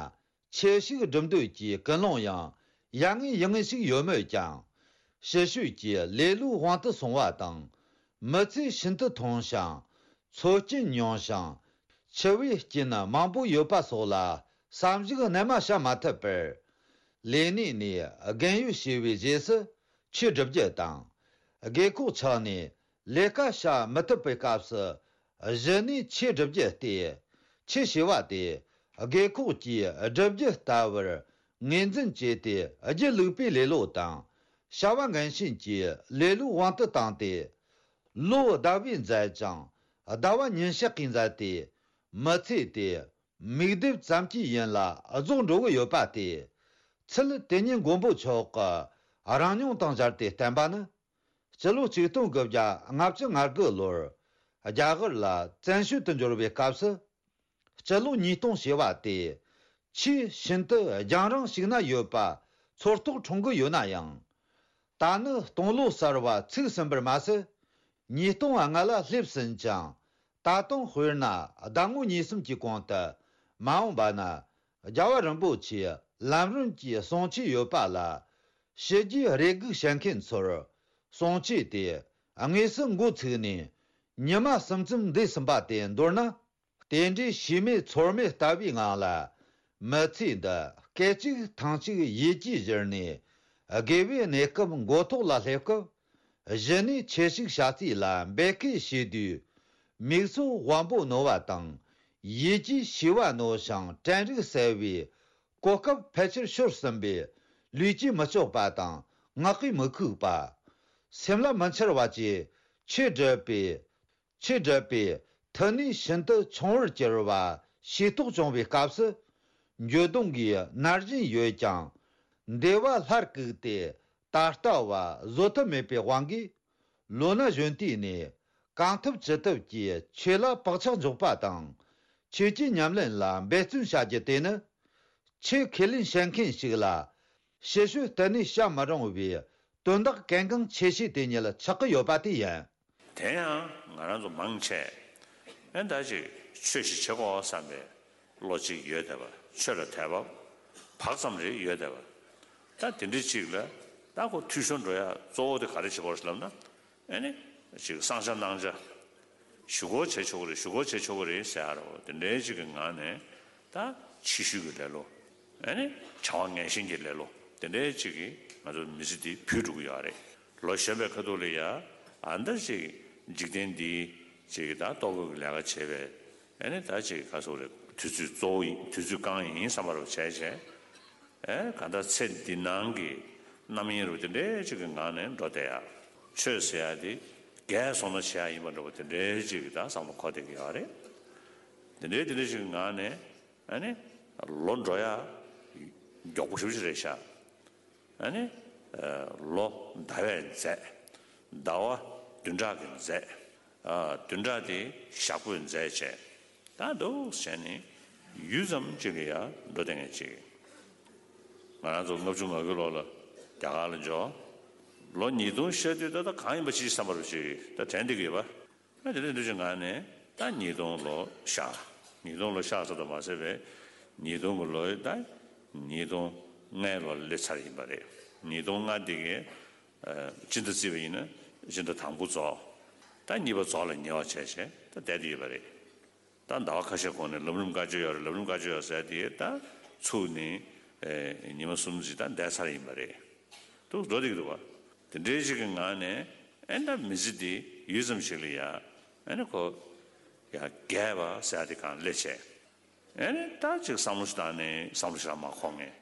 ཆོས་ཤིག་སྒྲུབ་འདོད་ཀྱི་ཀུན་སློང་ཡང་ཡ་ངན་ཡིད་ངན་ཞིག་ཡོད་མོད་ཀྱང་། ཕྱི་བཤོལ་གྱི་ལེ་ལོའི་དབང་དུ་སོང་བ་དང་། མི་ཚེ་ཤིན་ཏུ་ཐུང་ཞིང་། འཚོ་རྐྱེན་ཉུང་ཞིང་། འཆི་བའི་རྐྱེན་མང་པོ་ཡོད་པ་སོགས་ལ་བསམ་གཞིག་རྣལ་མ་བྱ་མ་ཐུབ་པར། ལས་གནས་ནས་རྒན་ཡོལ་བྱས་པའི་རྗེས་སུ་ཆོས་སྒྲུབ་རྒྱུ་དང་། རྒས་འཁོགས་ཆགས་ནས་ལས་ཀ་བྱ་མི་ཐུབ་པའི་སྐབས་སུ་གཞི་ནས་ཆོས་སྒྲུབ་རྒྱུ་སྟེ། ཆོས་ཞེས་པ་དེ་རྒས་འཁོགས་ཀྱིས་སྒྲུབ་རྒྱུ་ལྟ་བུར་ངོས་འཛིན་བྱས་ཏེ། སྒྱིད་ལུག་པའི་ལེ་ལོ་དང་བྱ་བ་འགན་ཞེན་གྱི་ལེ་ལོའི་དབང་དུ་བཏང་སྟེ། ལོ་ཟླ་བས་འཛད་ཅིང་ཟླ་བ་ཉིན་ཞག་གིས་འཛད་དེ། མི་ཚེ་དེ་མིག་རྡེབ་ཙམ་གྱིས་ཡུན་ལ་རྫོགས་འགྲོ་གི་ཡོད་པ་སྟེ། ཚུལ་དེ་ཉིད་མགོན་པོ་མཆོག་གི་རང་མྱོང་དང་སྦྱར་ཏེ་བསྟན་པ་ནི། སྤྱི་ལོ་ཆིག་སྟོང་དགུ་བརྒྱ་ལྔ་བཅུ་ང་དགུ་ལོར་རྒྱ་གར་ལ་བཙན་བྱོལ་དུ་འབྱོར་བའི་སྐབས་སུ། སྤྱི་ལོ་ཉིས་སྟོང་བྱས་པ་དེ་ཆེས་ཤིན་ཏུ་རྒྱང་རིང་ཞིག་ན་ཡོད་པ་ཚོར་རྟོག་འཁྲུངས་ཀྱི་ཡོད་ན་ཡང་། ད་ནི་སྟོང་ལོ་གསར་བ་ཚུགས་ཟིན་པར་མ་ཟད། ཉིས་སྟོང་ལྔ་ལ་སླེབས་ཟིན་ཅིང་། ད་དུང་དཔེར་ན་ཟླ་ངོ་གཉིས་གསུམ་གྱི་གོང་དུ་མ་འོངས་པ་ན་རྒྱལ་བ་རིན་པོ་ཆེའི་ལམ་རིམ་གྱི་གསུང་ཆོས་ཡོད་པ་ལ། ཕྱི་རྒྱལ་རེ་སྒུག་བྱེད་མཁན་ཚོར་གསུང་ཆོས་དེ་དངོས་སུ་འགོ་ཚུགས་ནས་ཉི་མ་གསུམ་ཙམ་འདས་ཟིན་པ་དེ་མདོར་ན། དེ་འདྲའི་ཤེས་མེད་ཚོར་མེད་ལྟ་བུའི་ངང་ལ། མི་ཚེ་འདི་སྐད་ཅིག་ཐེངས་གཅིག་ཡིད་ཀྱིས་བཞུར་ནས། དགེ་བའི་གནས་སྐབས་མགོ་ཐོག་ལ་སླེབས་སྐབས། གཞི་ནས་ཆེ་ཞིག་བྱ་རྩིས་ལ་འབད་སྐད་བྱེད་དུས། མིག་སོགས་དབང་པོ་རྣོ་བ་དང་། ཡིད་ཀྱི་ཤེས་པ་རྣོ་ཞིང་དྲན་རིག་གསལ་བའི་གོ་སྐབས་ཕལ་ཆེར་ཤོར་ཟིན་པས། ལུས་ཀྱིས་མི་ལྕོགས་པ་དང་ངག་གིས་མི་ཁུག་པ། སེམས་ལ་མི་འཆར་བ་བཅས་ཆེས་སྒྲུབ་པའི། ཆེས་སྒྲུབ་པའི་མཐུ་ནུས་ཤིན་ཏུ་ཆུང་བར་གྱུར་བ་ཤེས་རྟོགས་བྱུང་བའི་སྐབས་སུ། འགྱོད་གདུང་གིས་མནར་བཞིན་ཡོད་ཀྱང་། འདོད་པ་སླར་བཀུག་སྟེ་ད་ལྟ་བ་བཟོད་ཐབས་མེད་པའི་དབང་གིས། ལོ་ན་གཞོན་དུས་ནས་གང་ཐུབ་ཅི་ཐུབ་ཀྱིས་ཆོས་ལ་བག་ཆགས་འཇོག་པ་དང་། ཆོས་ཀྱི་ཉམས་ལེན་ལ་འབད་བརྩོན་བྱ་རྒྱུ་དེ་ནི། ཆོས་ཁས་ལེན་བྱེད་མཁན་ཞིག་ལ། ཞི་བྱེད་གཏི་ནས་བྱ་མི་རུང་བའི་དོན་དག་གལ་འགངས་ཆེ་ཤོས་དེ་ཉིད་ཆགས་ཀྱི་ཡོད་པ་དེ་ཡིན། དེ་ཡང་ང་རང་ཚོ་མང་ཆེ་ཨེ་ད་ཅིག་ཆོས་ཤིག་བྱེད་དགོས་བསམ་པའི་བློ་གཅིག་ཡོད་བསྡད་པ། ཆོས་ལ་དད་པ་བག་ཙམ་རེ་ཡོད་བསྡད་པ། ད་དེ་འདྲའི་ཅིག་ལ་ད་ཁོ་འཐུས་ཤོར་འགྲོ་ཡ་གཙོ་བོ་དེ་ག་རེ་བྱེད་དགོས་རེད་ལབ་ན། ཨེ་ནི་ཅིག་བསང་བྱ་གནང་བྱ། ཞུ་སྒོ་བྱེད་ཆོག་གི་རེད། ཞུ་སྒོ་བྱེད་ཆོག་གི་རེད་ཟེར་ཡ་རོ། དེ་འདྲའི་ཅིག་གི་ངང་ནས་ད་ཕྱི་ཤུལ་གྱི་ལེ་ལོ། ཨེ་ནི་བྱ་བ་ངན་ཞེན་གྱི་ལེ་ལོ། དེ་འདྲའི་ཅིག་གིས་ང་ཚོ་མི་ཚེ་འདི་བུད་འགྲོ་གི་ཡོད་རེད། ལོ་གཞོན་པའི་ཁ་ཐུག་ལ་ཡ་ཨ་འདྲ་ཅིག་འཇིག་རྟེན་འདིའི་ཅིག་ད་ལྟོ་གོས་ཀྱི་ལས་ཀ་བྱས་པའི། ཨེ་ནི་ད་ཅིག་ག་སོགས་རེད། དུས་ཚོད་གཙོ་བོ་ཡིན། དུས་ཚོད་རྐང་ཡིན་བསམ་པ་རུ་བྱས་བྱས། ཨེ་ག་ད་ཚེ་འདི་ནང་གི་རྣམ་གཡེང་རུ་དེ་འདྲའི་ཅིག་གི་ངང་ནས་འགྲོ་བསྡད་ཡ། ཆོས་ཟེར་ཡ་དེ་རྒས་སོང་ན་བྱེད་ཡ་ཡིན་པ་འདྲ་པོ་དེ་འདྲའི་ཅིག་གི་ད་བསམ་བློ་འཁོར་བསྡད་ཀྱི་ཡོད་རེད། དེ་འདྲའི་དེ་འདྲའི་ཅིག་གི་ངང་ནས་ཨ་ནི་ལོ་འགྲོ་ཡ་མགྱོགས་པོ་ཞེ་པོ་ཅིག་རེད་ཤག་ཨ་ནི་ལོ་ཟླ་བས་འཛད། ཟླ་བ་བདུན་ཕྲག་གིས་འཛད། བདུན་ཕྲག་དེ་ཞག་པོས་འཛད་བྱས། ད་འདུག་བྱས་ནས་ཡུད་ཙམ་ཅིག་ལ་ཡ་འགྲོ་བསྡད་མཁན་ཅིག་ང་རང་ཚོ་ལྔ་བཅུ་ང་དགུའི་ལོ་ལ་རྒྱ་གར་ལ་འབྱོར། ལོ་ཉིས་སྟོང་ཤར་དུས་ད་ལྟ་གང་ཡིན་པ་ཅིག་བསམ་པ་རུ་ཅིག་ད་དྲན་བསྡད་ཀྱི་ཡོད་པ། ད་དེ་འདྲ་འདུག་ཅིག་ངང་ནས་ད་ཉིས་སྟོང་ལོ་ཤར། ཉིས་སྟོང་ལོ་ཤར་ཙམ་དུ་མ་ཟད་པའི་ཉིས་སྟོང་གི་ལོའི་ད་ཉིས་སྟོང་ལྔའི་ལོ་ལ་སླེབས་ཚར་ཡིན་པ་རེད། ཉིས་སྟོང་ལྔ་འདི་གའི་སྤྱི་ཟླ་བརྩིས་པ་ཡིན་ན་སྤྱི་ཟླ་དང་པོ་རྫོགས། ད་གཉིས་པ་རྫོགས་ལ་ཉེ་བ་བྱས་བྱས་ད་བསྡད་དེ་ཡོད་པ་རེད། ད་ཟླ་བ་ཁ་ཤས་གོང་ནས་ལམ་རིམ་བཀའ་ཆོས་ཡོད་རེད། ལམ་རིམ་བཀའ་ཆོས་ཡོད་ཟེར་དེ་ད་ཚུགས་ནས་ཨེ་ཉི་མ་གསུམ་ཙམ་ད་བསྡད་ཚར་ཡིན་པ་རེད། འདུག་འགྲོ་བསྡད་ཀྱི་འདུག་བ། དེ་འདྲའི་ཞིག་གི་ངང་ནས་ཨེ་ད་མི་ཚེ་འདི་ཡུད་ཙམ་ཞིག་ལ་ཡ་ཨེ་ནི་ཁོ་ཡ་རྒས་པ་ཟེར་དེ་གང་སླེབས་བྱས། ཨེ་ནི་ད་ཅིག་བསམ་བློ་ཞིག་བཏང་ནས་བསམ་བློ་ཞིག་ལ་མ་འཁོར་ངེས།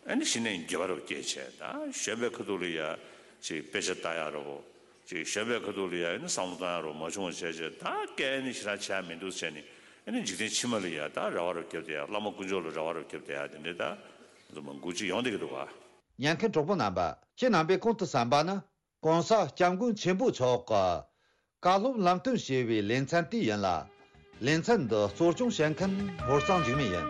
ཨེ་ནི་གཞི་ནས་འགྱོད་པ་རུ་སྐྱེས་བྱས། ད་གཞོན་པའི་ཁ་ཐུག་ལ་ཡ་ཅིག་དཔེ་ཆ་ལྟ་ཡ་རོ། ཅིག་གཞོན་པའི་ཁ་ཐུག་ལ་ཡ་ཨེ་ནི་བསམ་བློ་བཏང་ཡ་རོ་མ་བྱུང་བ་བྱས་བྱས། ད་སྐད་ནི་ཞེ་དྲག་བྱས་མི་འདུག་བྱས་ནས་ཨེ་ནི་འཇིག་རྟེན་ཕྱི་མ་ལ་ཡ་ད་རེ་བ་རུ་བརྒྱབ་བསྡད་ཡ། བླ་མ་དཀོན་མཆོག་ལ་རེ་བ་རུ་བརྒྱབ་བསྡད་ཡ། དེ་འདྲའི་ད་ང་ཚོ་མང་པོ་ཅིག་ཡོང་བསྡད་ཀྱི་འདུག་བ། ཉན་མཁན་གྲོགས་པོ་རྣམ་པ། ཁྱེད་རྣམ་པས་གོང་དུ་གསན་པ་ནི། ྋགོང་ས་ྋསྐྱབས་མགོན་ཆེན་པོ་མཆོག་གི་བཀའ་སློབ་ལམ་སྟོན་ཞེས་པའི་ལེ་ཚན་དེ་ཡིན་ལ། ལེ་ཚན་འདི་གཙོ་སྐྱོང་བྱེད་མཁན་ཧོར་གཙང་འཇིགས་མེད་ཡིན།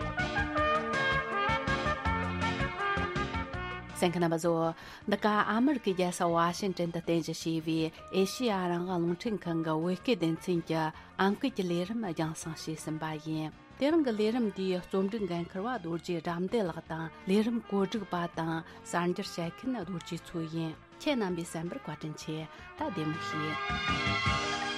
གསན་མཁན་རྣམ་པ་ཚོ། འདི་ག་ཨ་མི་རི་ཀའི་རྒྱལ་ས་ཝ་ཤིང་ཏོན་དུ་རྟེན་གཞི་བྱས་པའི་ཨེ་ཤེ་ཡ་རང་དབང་རླུང་འཕྲིན་ཁང་གི་བོད་སྐད་སྡེ་ཚན་གྱི་ཨང་ཀི་གི་ལས་རིམ་རྒྱང་སྲིང་བྱས་ཟིན་པ་ཡིན། དེ་རིང་གི་ལས་རིམ་འདིའི་རྩོམ་སྒྲིག་འགན་འཁུར་བ་རྡོ་རྗེ་དགྲ་འདུལ་ལགས་དང་། ལས་རིམ་བཀོད་སྒྲིག་པ་དང་གསར་འགྱུར་བཤད་མཁན་རྡོ་རྗེ་མཚོ་ཡིན། ཁྱེད་རྣམ་པས་གསན་པར་བཀའ་དྲིན་ཆེ། ད་བདེ་མོ་བྱོས།